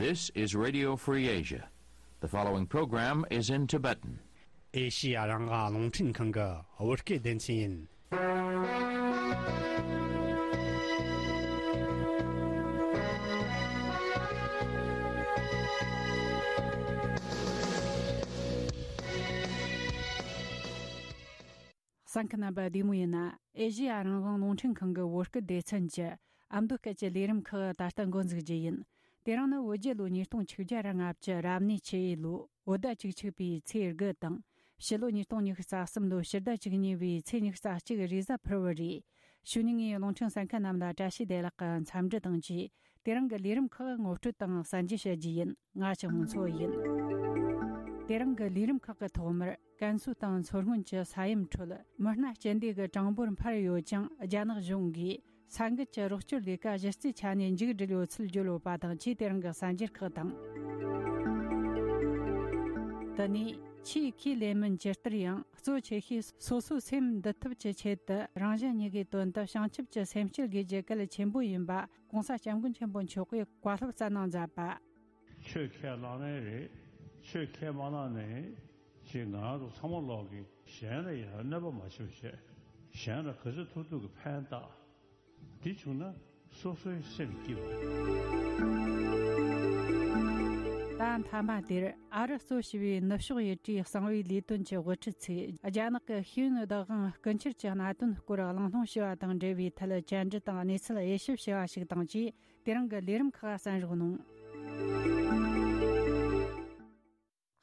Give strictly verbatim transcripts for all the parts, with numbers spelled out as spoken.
This is Radio Free Asia. The following program is in Tibetan. ཨེ་ཤི་ཡ་རང་དབང་རླུང་འཕྲིན་ཁང་གི་བོད་སྐད་སྡེ་ཚན་ཡིན། གསན་མཁན་རྣམ་པ་བདེ་མོ་ཡིན་ན། ཨེ་ཤི་ཡ་རང་དབང་རླུང་འཕྲིན་ཁང་གི་བོད་སྐད་སྡེ་ཚན་གྱི་ཨ་མདོ་སྐད་ཀྱི་ལས་རིམ་ཁག་ད་ལྟ་འགོ་འཛུགས་རྒྱུ་ཡིན། དེ་རིང་ནི་བོད་རྒྱལ་ལོ་ཉིས་སྟོང་ཆིག་བརྒྱ་ར་ལྔ་བཅུ་རབ་གནས་ཆུ་ཡོས་ལོའི་བོད་ཟླ་བཅུ་གཅིག་པའི་ཚེས་དགུ་དང་། ཕྱི་ལོ་ཉིས་སྟོང་ཉི་ཤུ་རྩ་གསུམ་ལོའི་ཕྱི་ཟླ་བཅུ་གཉིས་པའི་ཚེས་ཉི་ཤུ་རྩ་གཅིག་རེས་གཟའ་ཕུར་བུ་རེད། ཕྱི་ཉིན་ངས་རླུང་འཕྲིན་གསན་མཁན་རྣམས་ལ་བཀྲ་ཤིས་བདེ་ལེགས་ཀྱི་འཚམས་འདྲི་དང་བཅས། དེ་རིང་གི་ལས་རིམ་ཁག་ངོ་སྤྲོད་དང་གསན་རྒྱུ་བྱ་རྒྱུ་ཡིན། ང་ཆུང་ངུ་མཚོ་ཡིན། དེ་རིང་གི་ལས་རིམ་ཁག་གི་ཐོག་མར་ཀན་སུའུ་དང་མཚོ་སྔོན་གྱི་ས་ཡོམ་ཁྲོད་མི་སྣ་སྤྱི་བདེ་གི་གྲངས་འབོར་འཕར་ཡོད་ཅིང་། རྒྱ་ནག་གཞུང་གིས་ས་འགུལ་གྱི་རོགས་སྐྱོར་ལས་ཀ་གཞི་རྩའི་ཆ་ནས་མཇུག་བསྒྲིལ་ཡོད་ཚུལ་བརྗོད་ཡོད་པ་དང་བཅས། དེ་རིང་གི་གསར་འགྱུར་ཁག་དང་། དེ་ནས་ཆེས་ཁས་ལེན་མིན་ཇི་ལྟར་ཡང་གཙོ་ཆེ་ཤོས་སོ་སོའི་སེམས་འདུལ་ཐབས་ཀྱི་ཆེད་དུ་རང་གཞན་གཉིས་ཀའི་དོན་དུ་བྱང་ཆུབ་ཀྱི་སེམས་བསྐྱེད་དགོས་རྒྱུ་གལ་ཆེན་པོ་ཡིན་པ་༸གོང་ས་༸སྐྱབས་མགོན་ཆེན་པོ་མཆོག་གིས་བཀའ་སློབ་སྩལ་གནང་མཛད་པ། ཆོས་ཁས་བླངས་ནའི་རེད། ཆོས་ཁས་མ་བླངས་ནའི་ཅིག་ང་རང་ཚོ་ཚང་མ་ལོག་གིས་གཞན་ལ་ཡང་གནོད་པ་མ་བྱུང་བྱས། གཞན་ལ་ག་ཚོད་ཐུབ་ཐུབ་ཀྱི་ཕན་བཏགས། འདི་བྱུང་ན་སོ་སོའི་སེམས་སྐྱིད་པ། ད་མཐའ་མ་དེར་ཨ་རི་གཙོ་བྱས་པའི་ནུབ་ཕྱོགས་ཡུལ་གྲུའི་གསང་བའི་ལས་དོན་གྱི་དབུ་ཁྲིད་ཚོས་རྒྱ་ནག་གི་ཤེས་ཡོན་བདག་དབང་རྐུ་འཁྱེར་གྱི་གནད་དོན་སྐོར་གླེང་སློང་བྱས་པ་དང་འབྲེལ་བའི་ཐད་བཅར་འདྲི་དང་གནས་ཚུལ་དབྱེ་ཞིབ་བྱས་པ་ཞིག་དང་བཅས། དེ་རིང་གི་ལས་རིམ་ཁག་གསན་རོགས་གནང་།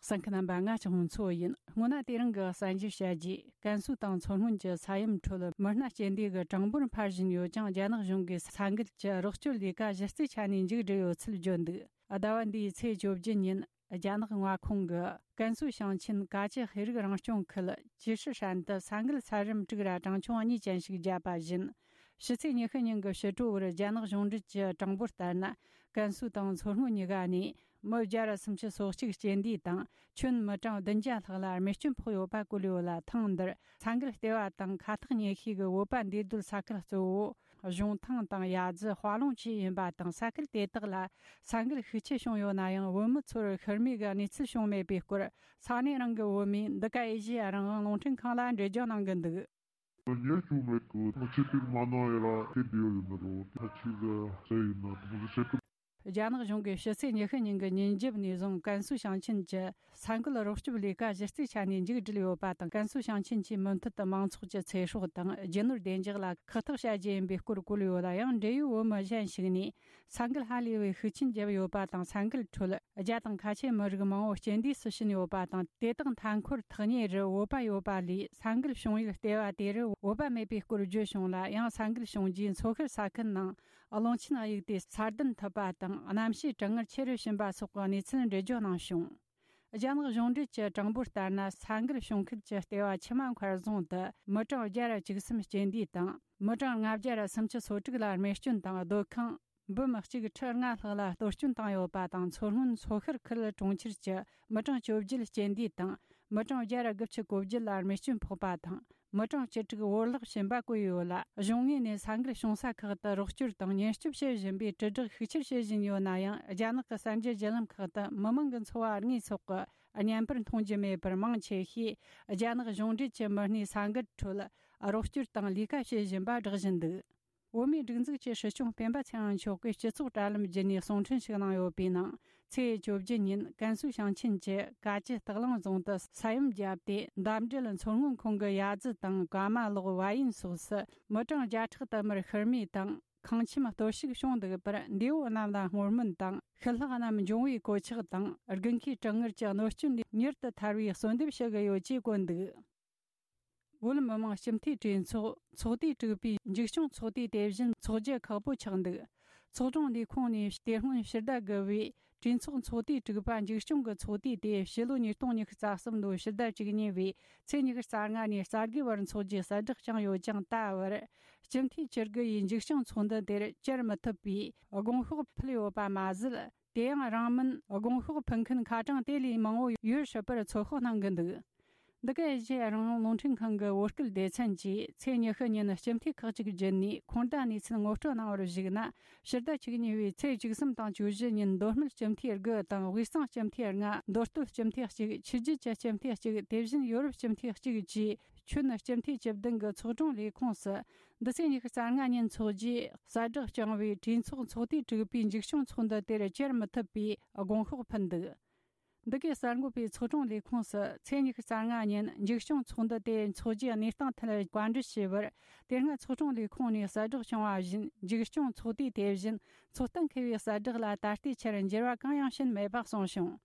གསན་མཁན་རྣམ་པ། ང་ཆུང་ངུ་མཚོ་ཡིན། སྔོན་ན་དེ་རིང་གི་གསར་འགྱུར་བཤད་རྗེས། ཀན་སུའུ་དང་མཚོ་སྔོན་གྱི་ས་ཡོམ་ཁྲོད་མི་སྣ་སྤྱི་བདེ་གི་གྲངས་འབོར་འཕར་བཞིན་ཡོད་ཅིང་། རྒྱ་ནག་གཞུང་གིས་ས་འགུལ་གྱི་རོགས་སྐྱོར་ལས་ཀ་གཞི་རྩའི་ཆ་ནས་མཇུག་བསྒྲིལ་ཡོད་ཚུལ་བརྗོད་འདུག་ཟླ་བ་འདིའི་ཚེས་བཅོ་བརྒྱད་ཉིན། རྒྱ་ནག་མངའ་ཁོངས་ཀྱི་ཀན་སུའུ་ཞིང་ཆེན་ཀ་ཅི་ཤེས་རིག་རང་སྐྱོང་ཁུལ་ཅི་ཧྲི་ཧྲན་དུ་ས་འགུལ་ཚད་རིམ་དྲུག་ར་གྲངས་ཆུང་གཉིས་ཅན་ཞིག་བརྒྱབ་པ་བཞིན། ཕྱི་ཚེས་ཉི་ཤུ་ཉིན་གྱི་ཕྱི་དྲོ་བར་རྒྱ་ནག་གཞུང་འབྲེལ་གྱི་གྲངས་འབོར་ལྟར་ན། ཀན་སུའུ་དང་མཚོ་སྔོན་གཉིས་ཀ་ནས་མི་བརྒྱ་ར་སུམ་ཅུ་སོ་གཅིག་རྐྱེན་འདས་དང་། ཁྱོན་མི་གྲངས་བདུན་བརྒྱ་ལྷག་ལ་རྨས་སྐྱོན་ཕོག་ཡོད་པ་བཀོད་ཡོད་ལ། ཐེངས་འདིར་ས་འགུལ་ལྟེ་བ་དང་ཁ་ཐག་ཉེ་ཤོས་ཀྱི་བོད་པ་འདུས་སྡོད་ས་ཁུལ་གཙོ་བོ་གཞུང་ཐང་དང་ཡ་རྫི། དཔའ་ལུང་བཅས་ཡིན་པ་དང་། ས་ཁུལ་དེ་དག་ལ་ས་འགུལ་ཤུགས་ཆེ་བྱུང་ཡོད་ན་ཡང་། བོད་མི་ཚོར་ཤི་རྨས་ཀྱི་གནས་ཚུལ་བྱུང་མེད་པའི་སྐོར་ས་གནས་རང་གི་བོད་མིས་འདི་ག་ཨེ་ཤེ་ཡ་རང་དབང་རླུང་འཕྲིན་ཁང་ལ་འགྲེལ་བརྗོད་གནང་གི་འདུག། ཉེས་བྱུང་མེད་གི། ཐུགས་ཆེ་པིག་མ་གནང་ཡ་ར་དེ་འདི་ཡོད་ཡིན་ནི་རོ། ཐ་ཆི་ཟེར་ཟེར་ཡིན་ན་ཐུགས་ཆེ་གི། རྒྱ་ནག་གཞུང་གིས་ཕྱི་ཚེས་ཉི་ཤུ་ཉིན་གྱི་ཉིན་རྒྱབ་ནས་བཟུང་ཀན་སུའུ་ཞིང་ཆེན་གྱི་ས་འགུལ་རོགས་སྐྱོབ་ལས་ཀ་གཞི་རྩའི་ཆ་ནས་མཇུག་བསྒྲིལ་ཡོད་པ་དང་། ཀན་སུའུ་ཞིང་ཆེན་གྱིས་མུ་མཐུད་དུ་མང་ཚོགས་ཀྱི་ཚེ་སྲོག་དང་རྒྱུ་ནོར་བདེ་འཇགས་ལ་ཁག་ཐེག་བྱ་རྒྱུ་ཡིན་པའི་སྐོར་བཀོད་ཡོད་ལ། ཡང་འབྲེལ་ཡོད་བོད་མི་གཞན་ཞིག་ནས་ས་འགུལ་ཧ་ལས་པའི་ཤུགས་རྐྱེན་བརྒྱབ་ཡོད་པ་དང་། ས་འགུལ་ཁྲོད་རྒྱ་དང་ཁ་ཆེ་མི་རིགས་མང་བོ་རྐྱེན་འདས་སུ་ཕྱིན་ཡོད་པ་དང་། དེ་དག་མཐའ་འཁོར་ཐག་ཉེ་རུ་བོད་པ་ཡོད་པ་ལས། ས་འགུལ་བྱུང་ཡུལ་ལྟེ་བ་དེ་རུ་བོད་པ་མེད་པའི་སྐོར་བརྗོད་བྱུང་ལ། ཡང་ས་འགུལ་བྱུང་རྗེས་མཚོ་ཤར་ས་ཁུལ་ནང་རླུང་ཆེན་གཡུག་སྟེ་ས་རྡུལ་འཐིབས་པ་དང་། གནམ་གཤིས་གྲང་ངར་ཆེ་རུ་ཕྱིན་པ་སོགས་ཀྱི་གནས་ཚུལ་འགྲེལ་བརྗོད་གནང་བྱུང་། རྒྱ་ནག་གཞུང་འབྲེལ་གྱི་གྲངས་འབོར་ལྟར་ན། ས་འགུལ་བྱུང་ཁུལ་གྱི་ལྟེ་བ་ཆུ་མ་མཁར་རྫོང་དུ་མི་གྲངས་བརྒྱ་ར་བཅུ་གསུམ་རྐྱེན་འདས་དང་། མི་གྲངས་ལྔ་བརྒྱ་ར་སུམ་ཅུ་སོ་དྲུག་ལ་རྨས་སྐྱོན་དང་། སྡོད་ཁང་འབུམ་གཅིག་ཁྲི་ལྔ་ལྷག་ལ་གཏོར་སྐྱོན་བཏང་ཡོད་པ་དང་། མཚོ་སྔོན་མཚོ་ཤར་ཁུལ་གྲོང་ཁྱེར་གྱི་མི་གྲངས་བཅོ་བརྒྱད་རྐྱེན་འདས་དང་། མི་གྲངས་བརྒྱ་ར་དགུ་བཅུ་གོ་བརྒྱད་ལ་རྨས་སྐྱོན་ཕོག་པ་དང་། མི་གྲངས་བཅུ་དྲུག་བོར་བརླག་ཕྱིན་པ་བཀོད་ཡོད་ལ། གཞུང་ངོས་ནས་ས་འགུལ་བྱུང་ས་ཁག་ཏུ་རོགས་སྐྱོར་དང་ཉེན་སྐྱོབ་བྱེད་བཞིན་པའི་དྲིལ་བསྒྲགས་ཤུགས་ཆེར་བྱེད་བཞིན་ཡོད་ན་ཡང་། རྒྱ་ནག་གི་གསར་འགྱུར་བརྒྱུད་ལམ་ཁག་ཏུ་མི་མང་གི་འཚོ་བ་དངོས་ཐོག་གི་བརྙན་པར་མཐོང་རྒྱུ་མེད་པར། མང་ཆེ་ཤོས་རྒྱ་ནག་གཞུང་འབྲེལ་གྱི་མི་སྣས་ས་འགུལ་ཁྲོད་རོགས་སྐྱོར་དང་ལས་ཀ་བྱེད་བཞིན་པ་བསྒྲགས་བཞིན་འདུག། བོད་མིའི་སྒྲིག་འཛུགས་ཀྱི་སྲིད་སྐྱོང་སྤེན་པ་ཚེ་རིང་མཆོག་གིས་སྤྱི་ཚོགས་དྲ་ལམ་བརྒྱུད་ནས་གསུང་འཕྲིན་ཞིག་གནང་ཡོད་པའི་ནང་། ཚེས་བཅོ་བརྒྱད་ཉིན་ཀན་སུའུ་ཞིང་ཆེན་གྱི་ཀ་ཅི་སྟག་ལུང་རྫོང་དུ་ས་ཡོམ་བརྒྱབ་སྟེ། འདབས་འབྲེལ་མཚོ་སྔོན་ཁོངས་ཀྱི་ཡ་རྫི་དང་ཀ་མ་ལོག་བ་ཡན་སོགས་སུ་མི་གྲངས་བརྒྱ་ཕྲག་དུ་མར་ཤི་རྨས་དང་། ཁང་ཁྱིམ་གཏོར་བཤིག་བྱུང་འདུག་པར། འདས་པོ་རྣམས་ལ་བསྔོ་སྨོན་དང་། ཤི་ལྷག་རྣམས་འབྱུང་བའི་གོད་ཆག་དང་། དགུན་ཁའི་གྲང་ངར་གྱི་གནོད་སྐྱོན་མྱུར་དུ་ཐར་བའི་གསོལ་འདེབས་ཞུ་གི་ཡོད་ཅེས་བཀོད་འདུག། བོད་མི་མང་སྤྱི་འཐུས་གྲོས་ཚོགས་ཚོགས་དུས་དྲུག་པའི་མཇུག་སྐྱོང་ཚོགས་དུས་དེ་བཞིན་འཚོགས་རྒྱུ་ཁག་པོ་ཆགས་འདུག། ཚོགས་དྲུང་ལས་ཁུངས་ནས་དེ་སྔོན་ཕྱི་ཟླ་དགུ་པའི་གྲོས་ཚོགས་ཚོགས་དུས་དྲུག་པ་མཇུག་སྐྱོང་གི་ཚོགས་དུས་དེ་ཕྱི་ལོ་ཉིས་སྟོང་ཉི་ཤུ་རྩ་གསུམ་ལོའི་ཕྱི་ཟླ་བཅུ་གཉིས་པའི་ཚེས་ཉི་ཤུ་རྩ་ལྔ་ནས་རྩ་དགུའི་བར་འཚོགས་རྒྱུའི་གསལ་བསྒྲགས་བསྐྱངས་ཡོད་ཀྱང་། ད་བར་སྤྱི་འཐུས་བཅུ་དགུ་ཡིས་མཇུག་སྐྱོང་ཚོགས་འདུ་དེར་བཅར་མི་ཐུབ་པའི་དགོངས་ཤོག་ཕུལ་ཡོད་པ་མ་ཟད། དེ་ཡང་རིང་མིན་དགོངས་ཤོག་ཕུལ་མཁན་ཁ་གྲངས་དེ་ལས་མང་བོ་ཡོད་སྲིད་པར་ཚོད་དཔག་གནང་གི་འདུག། འདི་ག་ཨེ་ཤེ་ཡ་རང་དབང་རླུང་འཕྲིན་ཁང་གི་བོད་སྐད་སྡེ་ཚན་གྱིས་ཚེས་ཉི་ཤུ་ཉིན་སྤྱི་འཐུས་ཁག་ཅིག་བརྒྱུད་ནས་ཁོང་རྟ་གནས་ཚུལ་ངོ་སྤྲོད་གནང་བར་གཞིགས་ན། ཕྱི་ཟླ་བཅུ་གཉིས་པའི་ཚེས་བཅུ་གསུམ་དང་བཅུ་བཞི་ཉིན་མདོ་སྨད་སྤྱི་འཐུས་དགུ་དང་དབུས་གཙང་སྤྱི་འཐུས་ལྔ། མདོ་སྟོད་སྤྱི་འཐུས་གཅིག་ཆོས་བརྒྱུད་ཀྱི་སྤྱི་འཐུས་གཅིག་དེ་བཞིན་ཡོ་རོབ་སྤྱི་འཐུས་གཅིག་བཅས་ཁྱོན་སྤྱི་འཐུས་བཅུ་བདུན་གྱི་ཚོགས་དྲུང་ལས་ཁུངས་སུ། འདི་ཚེས་ཉི་ཤུ་རྩ་ལྔ་ཉིན་འཚོགས་རྒྱུའི་གསལ་བསྒྲགས་བསྐྱངས་པས། གྲོས་ཚོགས་ཚོགས་དུས་དྲུག་པའི་མཇུག་སྐྱོང་ཚོགས་འདུ་དེར་བཅར་མི་ཐུབ་པའི་དགོངས་ཤོག་ཕུལ་འདུག་འདི་གའི་གསར་འགོད་པས་ཚོགས་དྲུང་ལས་ཁུངས་སུ་ཚེས་ཉི་ཤུ་རྩ་ལྔ་ཉིན་མཇུག་སྐྱོང་ཚོགས་འདུ་དེ་འཚོགས་རྒྱུའི་གནས་སྟངས་ཐད་བཀའ་འདྲི་ཞུས་པར། དེ་སྔ་ཚོགས་དྲུང་ལས་ཁུངས་ནས་གསལ་བསྒྲགས་བྱུང་བ་བཞིན། མཇུག་སྐྱོང་ཚོགས་དུས་དེ་བཞིན་ཚོགས་གཏན་འཁེལ་བའི་གསལ་བསྒྲགས་ལ་ད་ལྟའི་ཆར་འགྱུར་བ་གང་ཡང་ཕྱིན་མེད་པ་གསུངས་བྱུང་།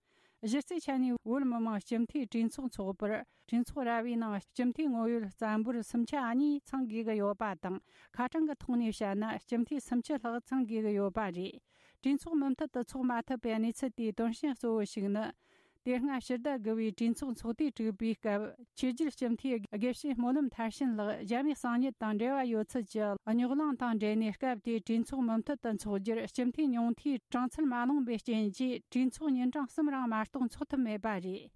གཞི་རྩའི་ཆ་ནས་བོད་མི་མང་སྤྱི་འཐུས་གྲོས་ཚོགས་འཚོགས་པར། གྲོས་ཚོགས་ར་བའི་ནང་སྤྱི་འཐུས་ངོ་ཡོད་རྩ་འབོར་སུམ་ཆ་གཉིས་ཚང་དགོས་ཀྱི་ཡོད་པ་དང་། ཁ་གྲངས་ཀྱི་ཐོག་ནས་བཤད་ན་སྤྱི་འཐུས་སུམ་ཅུ་ལྷག་ཚང་དགོས་ཀྱི་ཡོད་པ་རེད། གྲོས་ཚོགས་མུ་མཐུད་དུ་འཚོགས་མ་ཐུབ་པའི་གནས་ཚུལ་དེའི་དོན་རྐྱེན་གཙོ་བོ་ཞིག་ནི། དེ་སྔ་ཕྱི་ཟླ་དགུ་པའི་གྲོས་ཚོགས་ཚོགས་དུས་དྲུག་པའི་སྐབས། ཆོས་བརྒྱུད་སྤྱི་འཐུས་དགེ་བཤེས་སྨོན་ལམ་མཐར་ཕྱིན་ལགས་རྒྱ་མིའི་གསང་ཉུལ་དང་འབྲེལ་བ་ཡོད་ཚུལ་གྱི་རྙོག་གླེང་དང་འབྲེལ་ནས། སྐབས་དེའི་གྲོས་ཚོགས་མུ་མཐུད་དུ་འཚོགས་རྒྱུར་སྤྱི་འཐུས་ཉུང་མཐའི་གྲངས་ཚད་མ་ལོངས་པའི་རྐྱེན་གྱིས། གྲོས་ཚོགས་ཉིན་གྲངས་གསུམ་རིང་མ་གཏོགས་འཚོགས་ཐུབ་མེད་པ་རེད།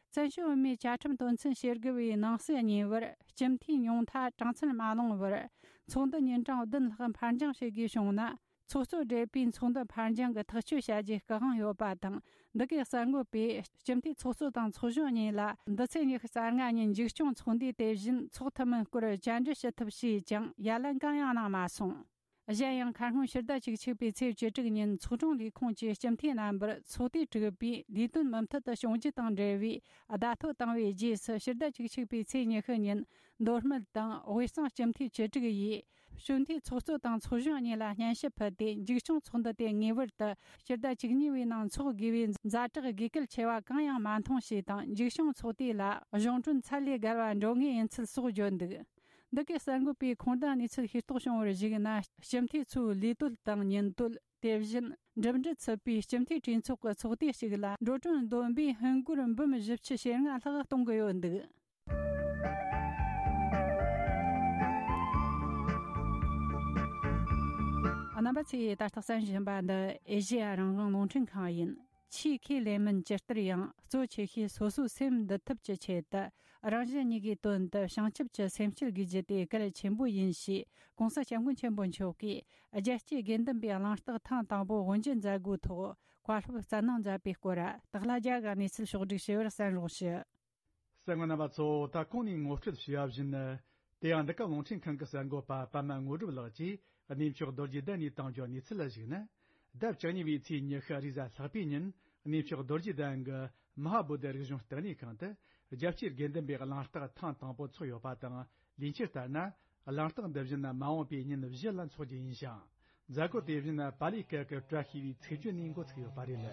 བཙན་བྱོལ་བོད་མིའི་བཅའ་ཁྲིམས་དོན་ཚན་ཞེ་དགུ་པའི་ནང་གསེས་གཉིས་པར། སྤྱི་འཐུས་ཉུང་མཐའ་གྲངས་ཚད་མ་ལོངས་པར། ཚོགས་འདུ་ཉིན་གྲངས་བདུན་ལྷག་འཕར་འགྱངས་བྱེད་དགོས་བྱུང་ན། ཚོགས་གཙོ་བགྲེས་པོས་ཚོགས་འདུ་འཕར་འགྱངས་ཀྱི་ཐག་གཅོད་བྱ་རྒྱུའི་སྐུ་དབང་ཡོད་པ་དང་། འདི་གའི་གསར་འགོད་པས་སྤྱི་འཐུས་ཚོགས་གཙོ་དང་ཚོགས་གཞོན་གཉིས་ལ་འདི་ཚེས་ཉི་ཤུ་རྩ་ལྔ་ཉིན་མཇུག་སྐྱོང་ཚོགས་འདུའི་དེ་བཞིན་འཚོགས་ཐུབ་མིན་སྐོར་བཅར་འདྲི་ཞུ་ཐབས་བྱས་ཀྱང་། ཡ་ལན་གང་ཡང་གནང་མ་སོང་། གཞན་ཡང་། ཁ་སྔོན་ཕྱི་ཟླ་བཅུ་གཅིག་པའི་ཚེས་བཅུ་དྲུག་ཉིན་ཚོགས་དྲུང་ལས་ཁུངས་ཀྱི་སྤྱི་འཐུས་རྣམ་པར་ཚོགས་དུས་དྲུག་པའི་ལས་དོན་མུ་མཐུད་དུ་བྱུང་རྒྱུ་དང་འབྲེལ་བའི་བརྡ་ཐོ་བཏང་བའི་རྗེས་སུ། ཕྱི་ཟླ་བཅུ་གཅིག་པའི་ཚེས་ཉི་ཤུ་ཉིན་མདོ་སྨད་དང་དབུས་གཙང་སྤྱི་འཐུས་བཅུ་དྲུག་ཡིས། གཞོན་དུས་ཚོགས་གཙོ་དང་ཚོགས་གཞོན་གཉིས་ལ་སྙན་ཞུ་ཕུལ་ཏེ། མཇུག་སྐྱོང་ཚོགས་འདུ་དེ་ངེས་པར་དུ་ཕྱི་ཟླ་བཅུ་གཉིས་པའི་ནང་འཚོགས་དགོས་པའི་ཛ་དྲག་དགོས་གལ་ཆེ་བ་གང་ཡང་མ་མཐོང་ཞེས་དང་། མཇུག་སྐྱོང་ཚོགས་དུས་ལ་གཞུང་གྲོན་ཚད་ལས་བརྒལ་བ་འགྲོ་ངེས་ཡིན་ཚུལ་སོགས་བརྗོད་འདུག་འདི་གའི་གསར་འགོད་པས་ཁོང་རྟ་གནས་ཚུལ་ཤེས་རྟོགས་བྱུང་བར་གཞིགས་ན། སྤྱི་འཐུས་ཚོའི་ལས་དོན་དང་ཉིན་དོན། དེ་བཞིན་འགྲིམ་འགྲུལ་ཚུད་པའི་སྤྱི་འཐུས་གྲོས་ཚོགས་ཀྱི་ཚོགས་དུས་ཤིག་ལ་འགྲོ་གྲོན་བསྡོམས་པས་ཧིན་སྒོར་འབུམ་བཞི་བཅུ་ཞེ་ལྔ་ལྷག་གཏོང་གི་ཡོད་འདུག་རྣམ་པ་ཚོས་ད་ལྟ་གསན་བཞིན་པ་འདི་ཨེ་ཤེ་ཡ་རང་དབང་རླུང་འཕྲིན་ཁང་ཡིན། ཆེས་ཁས་ལེན་མིན་ཇི་ལྟར་ཡང་གཙོ་ཆེ་ཤོས་སོ་སོའི་སེམས་འདུལ་ཐབས་ཀྱི་ཆེད་དུ། རང་གཞན་གཉིས་ཀའི་དོན་དུ་བྱང་ཆུབ་ཀྱི་སེམས་བསྐྱེད་དགོས་རྒྱུ་དེ་གལ་ཆེན་པོ་ཡིན་ཞེས། ྋགོང་ས་ྋསྐྱབས་མགོན་ཆེན་པོ་མཆོག་གིས་རྒྱལ་གཅེས་དགེ་འདུན་པའི་གླེང་སྟེགས་ཐེངས་དང་པོ་དབུ་འབྱེད་མཛད་སྒོའི་ཐོག་བཀའ་སློབ་སྩལ་གནང་མཛད་པའི་སྐོར། སྟག་ལྷ་རྒྱལ་གྱི་གནས་ཚུལ་ཕྱོགས་བསྒྲིགས་ཞུ་བར་གསན་རོགས་ཞུ། གསན་མཁན་རྣམ་པ་ཚོ། ད་གོང་ནས་ངོ་སྤྲོད་ཞུས་པ་བཞིན། དེ་ཡང་འདི་ག་རླུང་འཕྲིན་ཁང་གི་གསར་འགོད་པ་པདྨ་དངོས་གྲུབ་ལགས་ཀྱིས་གནས་མཆོག་རྡོ་རྗེ་གདན་ནས་བཏང་རྒྱུའི་གནས་ཚུལ་ལ་གཞིགས་ན། ཟླ་བཅུ་གཉིས་པའི་ཚེས་ཉི་ཤུ་རེས་གཟའ་ལྷག་པའི་ཉིན། གནས་མཆོག་རྡོ་རྗེ་གདན་གྱི་མ་ཧཱ་བོ་དྷི་རིག་གཞུང་ལྟེ་གནས་ཁང་དུ། རྒྱལ་གཅེས་དགེ་འདུན་པའི་གླེང་སྟེགས་ཐེངས་དང་པོ་འཚོགས་ཡོད་པ་དང་། ལས་འཆར་ལྟར་ན། གླེང་སྟེགས་འདི་བཞིན་མ་འོངས་པའི་ཉིན་བཞི་ལ་འཚོགས་རྒྱུ་ཡིན་ཞིང་། མཛད་སྒོ་དེ་བཞིན་པཱ་ལིའི་སྐད་ཀྱི་བཀྲ་ཤིས་པའི་ཚིག་བརྗོད་ནས་འགོ་ཚུགས་ཡོད་པ་རེད།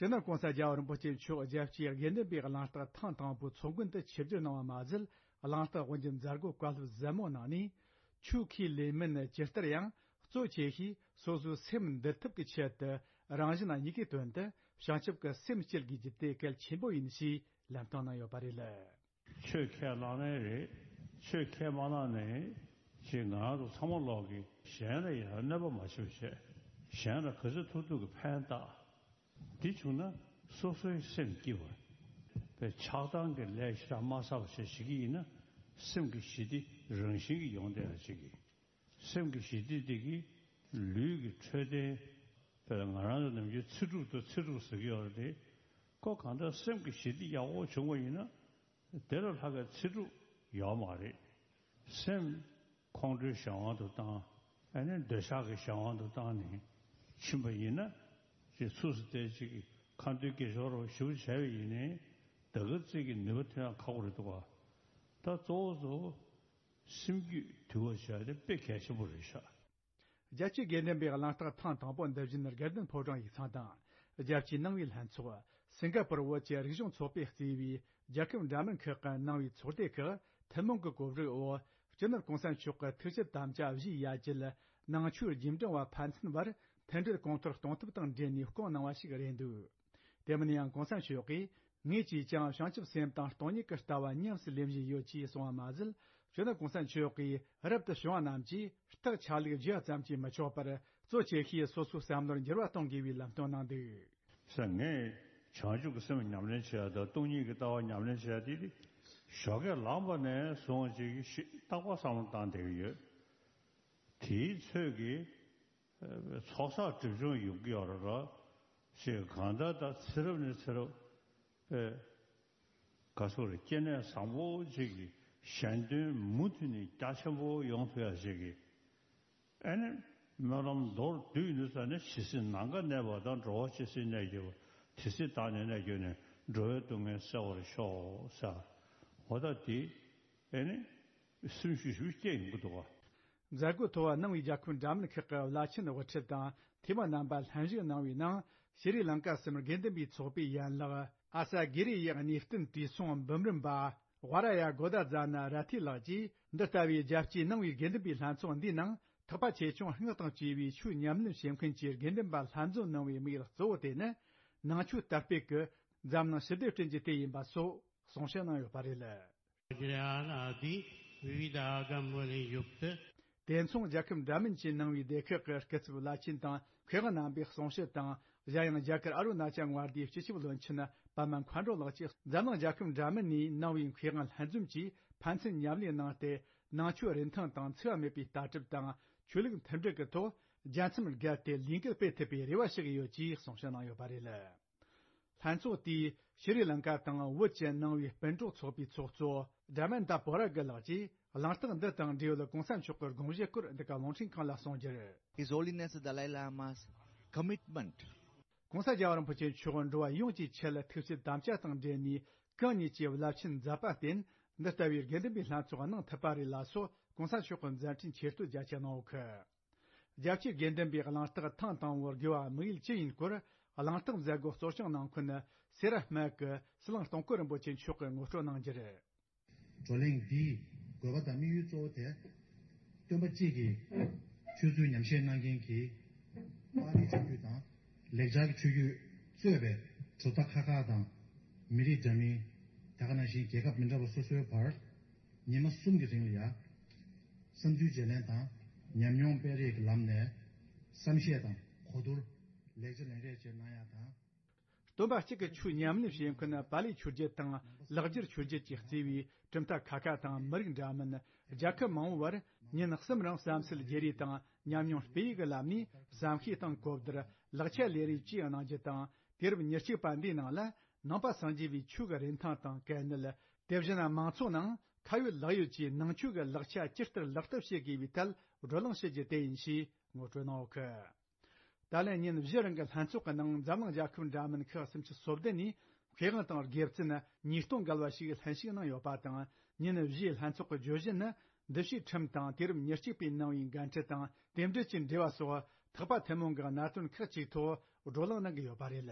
སྤྱི་ནོར་༧གོང་ས་༧རྒྱལ་བ་རིན་པོ་ཆེ་མཆོག་རྒྱལ་གཅེས་དགེ་འདུན་པའི་གླེང་སྟེགས་ཐེངས་དང་པོའི་ཚོགས་མགོན་དུ་ཆིབས་བསྒྱུར་གནང་བ་མ་ཟད། གླེང་སྟེགས་དབུ་འབྱེད་མཛད་སྒོའི་བཀའ་སློབ་ཟབ་མོ་གནང་ནས། ཆོས་ཁས་ལེན་མིན་ཇི་ལྟར་ཡང་གཙོ་ཆེ་ཤོས་སོ་སོའི་སེམས་འདུལ་ཐབས་ཀྱི་ཆེད་དུ། རང་གཞན་གཉིས་ཀའི་དོན་དུ་བྱང་ཆུབ་ཀྱི་སེམས་བསྐྱེད་དགོས་རྒྱུ་དེ་གལ་ཆེན་པོ་ཡིན་ཞེས་ལན་བཏང་གནང་ཡོད་པ་རེད། ཆོས་ཁས་བླངས་ནའི་རེད། ཆོས་ཁས་མ་བླངས་ནའི་ཅིག་ང་རང་ཚོ་ཚང་མ་ལོག་གི་གཞན་ལ་ཡང་གནོད་པ་མ་བྱེད་པ་བྱས། གཞན་ལ་ག་ཚོད་ཐུབ་ཐུབ་ཀྱི་ཕན་བཏགས། འདི་བྱུང་ན་སོ་སོའི་སེམས་སྐྱིད་པ། པའི་ཆགས་སྡང་གི་ལས་ཞེ་དྲག་མ་བསགས་པ་བྱས་བྱེད་ཀྱི་ཡིན་ན། སེམས་ཀྱི་ཞི་བདེ་རང་བཞིན་གྱིས་ཡོང་བསྡད་ཡ་ཅིག་གི། སེམས་ཀྱི་ཞི་བདེ་དེ་གིས་ལུས་ཀྱི་འཕྲོད་བསྟེན། དཔེར་ན་ང་རང་ཚོ་ནམ་རྒྱུན་ཚེ་སྒྲུབ་དང་ཚེ་སྒྲུབ་ཟེར་གྱི་ཡོད་རེད་དེ། ཁོ་གང་ལྟར་སེམས་ཀྱི་ཞི་བདེ་ཡག་པོ་བྱུང་བ་ཡིན་ན། དེ་ལས་ལྷག་པའི་ཚེ་སྒྲུབ་ཡོད་མ་རེད། སེམས་ཁོང་ཁྲོའི་གཞན་དབང་དུ་བཏང་། ཨ་ནི་འདོད་ཆགས་ཀྱི་གཞན་དབང་དུ་བཏང་ནས་ཕྱིན་པ་ཡིན་ན། ཅིག་ཚུགས་སུ་བསྡད་ཅིག་གི་ཁ་འདོན་དགེ་སྦྱོར་རོ་ཞུ་བྱས་པ་ཡིན་ནའི། ད་ག་ཙིག་གི་ནུས་པ་ཐོན་ཡག་ཁག་པོ་རེད་འདུག་ག། ད་གཙོ་བོ་གཙོ་བོ། སེམས་རྒྱུད་དུལ་བ་བྱས་ཏེ་དཔེ་གལ་ཆེན་པོ་རེད་ཤག། རྒྱལ་གཅེས་དགེ་འདུན་པའི་གླེང་སྟེགས་ཐེངས་དང་པོ་འདི་བཞིན་དགེ་ལྡན་ཕོ་བྲང་ཡིག་ཚང་དང་། རྒྱལ་སྤྱིའི་ནང་པའི་ལྷན་ཚོགས། སིང་ག་པུར་བོད་ཀྱི་རིག་གཞུང་ཚོགས་པས་གཙོས་པའི་རྒྱལ་ཁབ་འདྲ་མིན་ཁག་གི་ནང་པའི་ཚོགས་སྡེ་ཁག་ཐུན་མོང་གི་གོ་སྒྲིག་འོག་སྤྱི་ནོར་གོང་ས་མཆོག་གི་ཐུགས་བསྐྱེད་དམ་བཅའ་བཞེས་ཡ་བཅས་ནང་ཆོས་རྗེས་འབྲང་བ་ཕན་ཚུན་བར་མཐུན་སྒྲིལ་གོང་མཐོར་གཏོང་ཐབས་དང་འབྲེལ་ནས་བསྐོང་གནང་བ་ཞིག་རེད་འདུག། དེ་མིན་ཡང་གོང་ས་མཆོག་གིས། ངེད་ཀྱིས་ཀྱང་བྱང་ཆུབ་སེམས་དང་སྟོང་ཉིད་ཀྱི་ལྟ་བ་ཉམས་སུ་ལེན་བཞིན་ཡོད་ཅེས་གསུངས་པ་མ་ཟད། སྤྱི་ནོར་གོང་ས་མཆོག་གིས་རབ་ཏུ་བྱུང་བ་རྣམས་ཀྱིས་རྟགས་ཆ་ལུགས་བརྗེ་བ་ཙམ་གྱིས་མི་ཆོག་པར། གཙོ་ཆེ་ཤོས་སོ་སོའི་བསམ་བློར་འགྱུར་བ་གཏོང་དགོས་པའི་ལམ་སྟོན་གནང་འདུག་ཟེར། ངས་བྱང་ཆུབ་ཀྱི་སེམས་ཉམས་ལེན་བྱེད་ཡ་དང་སྟོང་ཉིད་ཀྱི་ལྟ་བ་ཉམས་ལེན་བྱེད་ཡ་དེ་ཞོགས་ཀས་ལངས་པ་ནས་བཟུང་ཅིག་ཤི་རྟག་པར་བསམ་བློ་བཏང་བསྡད་ཀྱི་ཡོད། དེའི་ཚོད་ཀྱིས་ཚོགས་བསགས་སྒྲིབ་སྦྱོང་ཡོང་གི་ཡོད་རེད་ལ། ཞེས་གང་ལྟར་ད་ཚེ་རབས་ནས་ཚེ་རབས་པའི་ག་ཚོད་རེད། སྐྱེ་གནས་བཟང་པོ་ཅིག་གི་གཞན་དོན་མུ་མཐུད་ནས་རྒྱ་ཆེན་པོ་ཡོང་ཐུབ་ཡ་ཞིག་གི་ཨ་ནི་སྨོན་ལམ་མདོར་བསྡུས་ཡིན་དུས་ཙ་ནས་ཇི་སྲིད་ནམ་མཁའ་གནས་པ་དང་། འགྲོ་བ་ཇི་སྲིད་གནས་གྱུར་པ། དེ་སྲིད་བདག་ནི་གནས་གྱུར་ནས། འགྲོ་བའི་སྡུག་བསྔལ་སེལ་བར་ཤོག་ཟེར། འོ་ད་དེ་ཨ་ནི་སེམས་ཤུགས་ཞེ་པོ་སྐྱེ་ཡོང་གི་འདུག་ག་མཛད་སྒོའི་ཐོག་གནང་བའི་རྒྱལ་ཁབ་འདྲ་མིན་ཁག་གི་བླ་ཆེན་དབུ་ཁྲིད་དང་འཐུས་མི་རྣམ་པ་ལྷན་ཞུགས་གནང་བའི་ནང་། ཤྲི་ལང་ཀ་གསུམ་དགེ་འདུན་པའི་ཚོགས་པའི་ཡན་ལག་ཨ་ས་གི་རི་ཡི་གནས་བརྟན་དུས་སྲུང་འབུམ་རམས་པ་ཝ་ར་ཡ་གོ་ད་ཛ་ན་ར་ཐི་ལགས་ཀྱིས། འདི་ལྟ་བུའི་རྒྱལ་སྤྱིའི་ནང་པའི་དགེ་འདུན་པའི་ལྷན་ཚོགས་འདིའི་ནང་། ཐེག་པ་ཆེ་ཆུང་སྔགས་དང་བཅས་པའི་ཆོས་ཉམས་ལེན་བྱེད་མཁན་གྱི་དགེ་འདུན་པ་ལྷན་འཛོམས་གནང་བའི་དམིགས་ཡུལ་གཙོ་བོ་དེ་ནི། ནང་ཆོས་དར་སྤེལ་གྱི་འཛམ་གླིང་ཞི་བདེ་བསྐྲུན་རྒྱུ་དེ་ཡིན་པ་སོགས་གསུང་བཤད་གནང་ཡོད་པ་རེད། वज्रयानादि विविधागम्बुलियुक्त དེ་མཚུངས་རྒྱལ་ཁབ་འདྲ་མིན་གྱིས་གནང་བའི་སྡེ་ཁག་གི་སྐུ་ཚབ་བླ་ཆེན་དང་མཁས་དབང་རྣམ་པས་གསུང་བཤད་དང་། གཞན་ཡང་རྒྱ་གར་ཨ་རུ་ན་ཅལ་མངའ་སྡེའི་སྤྱི་ཁྱབ་བློན་ཆེན་པདྨ་མཁའ་འགྲོ་ལགས་ཀྱིས་འཛམ་གླིང་རྒྱལ་ཁབ་འདྲ་མིན་ནས་གནང་བའི་མཁས་དབང་ལྷན་འཛོམས་ཀྱིས་ཕན་ཚུན་མཉམ་ལས་གནང་སྟེ། ནང་ཆོས་རིན་ཐང་དང་འཚེ་བ་མེད་པའི་ལྟ་གྲུབ་དང་ཆོས་ལུགས་མཐུན་སྒྲིལ་གྱི་ཐོག་རྒྱལ་མཚམས་བརྒལ་ཏེ་ལས་འགུལ་སྤེལ་ཐུབ་པའི་རེ་བ་ཞུ་གི་ཡོད་ཅེས་གསུང་བཤད་གནང་ཡོད་པ་རེད། ལྷན་ཚོགས་དེས་ཤྲི་ལང་ཀ་དང་བོད་ཀྱི་ནང་པའི་སྤུན་གྲོགས་ཚོགས་པའི་ཚོགས་གཙོ་དྲ་མན་ད་པོ་ར་གི་ལགས་ཀྱིས་གླེང་སྟེགས་འདི་དང་འབྲེལ་ཡོད་གོང་ས་མཆོག་གི་དགོངས་གཞི་སྐོར་འདི་ག་རླུང་འཕྲིན་ཁང་ལ་གསུངས་རྒྱུར། His Holiness the Dalai Lama's commitment. གོང་ས་རྒྱལ་བ་རིན་པོ་ཆེ་མཆོག་འགྲོ་བ་ཡོངས་ཀྱི་ཆེད་ཐུགས་བསྐྱེད་དམ་བཅའ་དང་འབྲེལ་ནས་གང་ཉིད་ཀྱི་རླབས་ཆེན་མཛད་པར་བརྟེན། འདི་ལྟ་བུའི་དགེ་འདུན་པའི་ལྷན་ཚོགས་གནང་ཐུབ་པ་རེད་ལ་སོགས་གོང་ས་མཆོག་གི་མཛད་འཕྲིན་ཆེ་བསྟོད་རྒྱ་ཆེ་གནང་ཡོད་ཁུལ། རྒྱལ་སྤྱིའི་དགེ་འདུན་པའི་གླེང་སྟེགས་ཐེངས་དང་པོར་དགོས་པ་དམིགས་ཡུལ་ཅི་ཡིན་སྐོར། གླེང་སྟེགས་མཛད་སྒོ་གཙོ་སྐྱོང་གནང་མཁན་སེ་ར་སྨད་ཀྱི་ཟི་ལིང་སྟོང་སྐོར་རིན་པོ་ཆེ་མཆོག་གིས་ངོ་སྤྲོད་གནང་རྒྱུར། བགྲོ་གླེང་འདིའི་དགོས་པ་དང་དམིགས་ཡུལ་གཙོ་བོ་དེ། སྟོན་པ་གཅིག་གི་ཆོས་ཚུལ་ཉམས་བཞེས་གནང་མཁན་གྱི་པཱ་ལིའི་ཆོས་བརྒྱུད་དང་། ལེགས་སྦྱར་གྱི་ཆོས་བརྒྱུད་གཙོས་པའི་གྲུབ་མཐའ་ཁག་ཁག་དང་། མི་རིགས་འདྲ་མིན། དེ་ག་ནང་བཞིན་རྒྱལ་ཁབ་མི་འདྲ་བ་སོ་སོའི་བར། ཉི་མ་གསུམ་གྱི་རིང་ལ་ཡ། བསམ་ཚུལ་བརྗེ་ལེན་དང་། ཉམས་མྱོང་སྤེལ་རེས་ཀྱི་ལམ་ནས་བསམ་ཤེས་དང་གོ་བསྡུར། ལེགས་ཆ་ལེན་རེས་བཅས་གནང་ཡ་དང་། སྟོན་པ་གཅིག་གི་ཆོས་ཉམས་ལེན་བྱེད་མཁན་པཱ་ལིའི་ཆོས་བརྒྱུད་དང་ལེགས་སྦྱར་ཆོས་བརྒྱུད་ཀྱིས་གཙོས་པའི་གྲུབ་མཐའ་ཁག་ཁག་དང་མི་རིགས་འདྲ་མིན། རྒྱལ་ཁབ་མང་བོའི་བར་ཉིན་གསུམ་རིང་བསམ་ཚུལ་བརྗེ་རེས་དང་ཉམས་མྱོང་སྤེལ་ཡིག་གི་ལམ་ནས་བསམ་ཤེས་དང་གོ་བསྡུར། ལེགས་ཆ་ལེན་རེས་བཅས་གནང་རྒྱུ་དང་། དུས་རབས་ཉེར་གཅིག་པ་འདིའི་ནང་ལ་ནང་པ་སངས་རྒྱས་པའི་ཆོས་ཀྱི་རིན་ཐང་དང་གལ་གནད། དེ་བཞིན་མང་ཚོགས་ནང་ཁ་ཡོད་ལག་ཡོད་ཀྱིས་ནང་ཆོས་ཀྱི་ལེགས་ཆ་ཇི་ལྟར་ལག་བསྟར་བྱེད་དགོས་པའི་ཐད་བགྲོ་གླེང་བྱེད་རྒྱུ་དེ་ཡིན་ཞེས་ངོ་སྤྲོད་གནང་ཡོད་ཁུལ། ད་ལན་ཉིན་བཞི་རིང་གི་ལྷན་ཚོགས་ཀྱི་ནང་འཛམ་གླིང་རྒྱལ་ཁབ་འདྲ་མིན་ཁག་སུམ་ཅུ་སོ་བདུན་ནས་མཁས་དབང་དང་དགེ་བཙུན་ཉིས་སྟོང་བརྒལ་བ་ཞིག་ལྷན་ཞུགས་གནང་ཡོད་པ་དང་། ཉིན་བཞིའི་ལྷན་ཚོགས་ཀྱི་བརྗོད་གཞི་ནི། འདུ་བྱེད་ཁྲིམས་དང་དུས་རབས་ཉེར་གཅིག་པའི་ནང་པའི་འགན་འཁྲི་དང་རྟེན་འབྲེལ་གྱི་འབྲེལ་བ་སོགས་ཐེག་པ་ཐུན་མོང་གི་གནད་དོན་ཁག་ཅིག་ཐོག་བགྲོ་གླེང་གནང་གི་ཡོད་པ་རེད།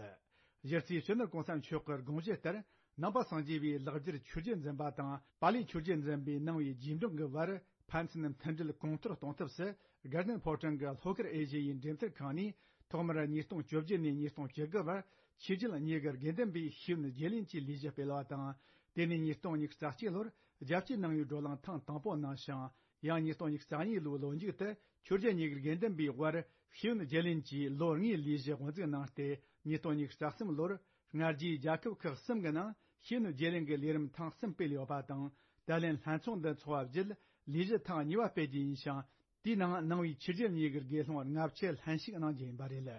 གཞི་རྩའི་སྤྱི་ནོར་གོང་ས་མཆོག་གི་དགོངས་གཞི་ལྟར། ནང་པ་སངས་རྒྱས་པའི་ལེགས་སྦྱར་ཆོས་བརྒྱུད་འཛིན་པ་དང་པཱ་ལིའི་ཆོས་བརྒྱུད་འཛིན་པའི་ནང་པའི་རྗེས་འབྲང་གི་བར་ཕན་ཚུན་མཐུན་སྒྲིལ་གོང་མཐོར་གཏོང་ཐབས་སུ། དགའ་ལྡན་ཕོ་བྲང་གི་ལྷོ་ཁུལ་ཨེ་ཤི་ཡའི་འགྲེམས་སྟོན་ཁང་ནས་ཐོག་མར་ཉིས་སྟོང་བཅོ་བརྒྱད་ནས་ཉིས་སྟོང་བཅུ་དགུ་བར་ཆོས་བརྒྱུད་གཉིས་ཀྱི་དགེ་འདུན་པའི་ཤེས་ཡོན་བརྗེ་ལེན་གྱི་ལས་གཞི་སྤེལ་བ་དང་། དེ་ནས་ཉིས་སྟོང་ཉི་ཤུ་རྩ་གཅིག་ལོར་རྒྱལ་སྤྱིའི་ནང་པའི་བགྲོ་གླེང་ཐེངས་དང་པོ་གནང་ཞིང་། ཡང་ཉིས་སྟོང་ཉི་ཤུ་རྩ་གཉིས་ལོའི་ལོ་མཇུག་ཏུ་ཆོས་བརྒྱུད་གཉིས་ཀྱི་དགེ་འདུན་པའི་དབར་ཤེས་ཡོན་བརྗེ་ལེན་གྱི་ལོ་ལྔའི་ལས་གཞི་དབུ་འཛུགས་གནང་སྟེ། ཉིས་སྟོང་ཉི་ཤུ་རྩ་གསུམ་ལོར་སྔ་རྗེས་རྒྱལ་ཁབ་ཁག་གསུམ་གྱི་ནང་ཤེས་ཡོན་བརྗེ་ལེན་གྱི་ལས་རིམ་ཐེངས་གསུམ་སྤེལ་ཡོད་པ་དང་། ད་ལན་ལྷན་ཚོགས་འདི་འཚོགས་པ་བརྒྱུད་ལས་གཞི་ཐེངས་གཉིས་པ་སྤེལ་རྒྱུ་ཡིན་ཞིང་། དེའི་ནང་ནང་པའི་ཆོས་བརྒྱུད་གཉིས་ཀྱི་དགེ་སློང་ལྔ་བཅུ་ལྷན་ཞུགས་གནང་རྒྱུ་ཡིན་པ་རེད།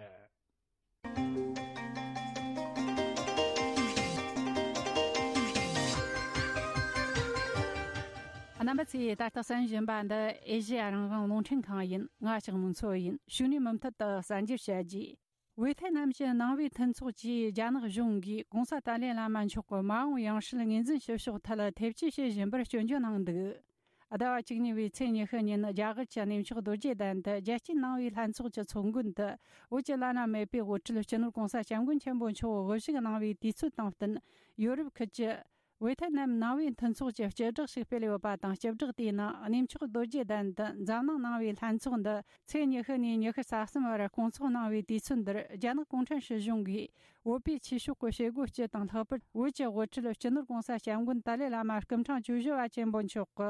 རྣམ་པ་ཚོས་ད་ལྟ་གསན་བཞིན་པ་འདི་ཨེ་ཤེ་ཡ་རང་དབང་རླུང་འཕྲིན་ཁང་ཡིན། ང་ལྕགས་མོ་མཚོ་ཡིན། ཕྱུགས་ནས་མུ་མཐུད་དུ་གསར་འགྱུར་བཤད་རྒྱུ། ཝེ་ཐེ་ནམ་གྱི་ནང་པའི་མཐུན་ཚོགས་ཀྱིས་རྒྱ་ནག་གཞུང་གིས་གོང་ས་ཏཱ་ལའི་བླ་མ་མཆོག་གི་མ་འོངས་ཡང་སྲིད་ངོས་འཛིན་བྱེད་ཕྱོགས་ཐད་ཐེ་བྱུས་བྱེད་བཞིན་པར་སྐྱོན་བརྗོད་གནང་འདུག་ཟླ་བ་བཅུ་གཉིས་པའི་ཚེས་ཉི་ཤུ་ཉིན་རྒྱ་གར་གྱི་གནས་མཆོག་རྡོ་རྗེ་གདན་དུ་རྒྱལ་སྤྱིའི་ནང་པའི་ལྷན་ཚོགས་ཀྱི་ཚོགས་མགོན་དུ་བོད་ཀྱི་བླ་ན་མེད་པའི་དབུ་ཁྲིད་སྤྱི་ནོར་གོང་ས་སྐྱབས་མགོན་ཆེན་པོ་མཆོག་དབུ་བཞུགས་གནང་བའི་དུས་ཚོད་དང་བསྟུན། ཡོ་རོབ་ཁུལ་གྱི་ཝེ་ཐེ་ནམ་ནང་པའི་མཐུན་ཚོགས་ཀྱིས་སྤྱི་བསྒྲགས་ཤིག་སྤེལ་ཡོད་པ་དང་། སྤྱི་བསྒྲགས་དེའི་ནང་གནས་མཆོག་རྡོ་རྗེ་གདན་དུ་འཛམ་གླིང་ནང་པའི་ལྷན་ཚོགས་འདི་ཚེས་ཉི་ཤུ་ནས་ཉི་ཤུ་རྩ་གསུམ་བར་སྐོང་ཚོགས་གནང་བའི་དུས་ཚོད་འདིར་རྒྱ་ནག་གུང་ཁྲན་སྲིད་གཞུང་གིས་ བོད་པའི་ཆོས་ཕྱོགས་ཀྱི་བྱེད་སྒོ་སྤྱི་དང་ལྷག་པར་བོད་ཀྱི་དབུ་ཁྲིད་སྤྱི་ནོར་༸གོང་ས་༸སྐྱབས་མགོན་ཏཱ་ལའི་བླ་མ་སྐུ་ཕྲེང་བཅུ་བཞི་པ་ཆེན་པོ་མཆོག་གི་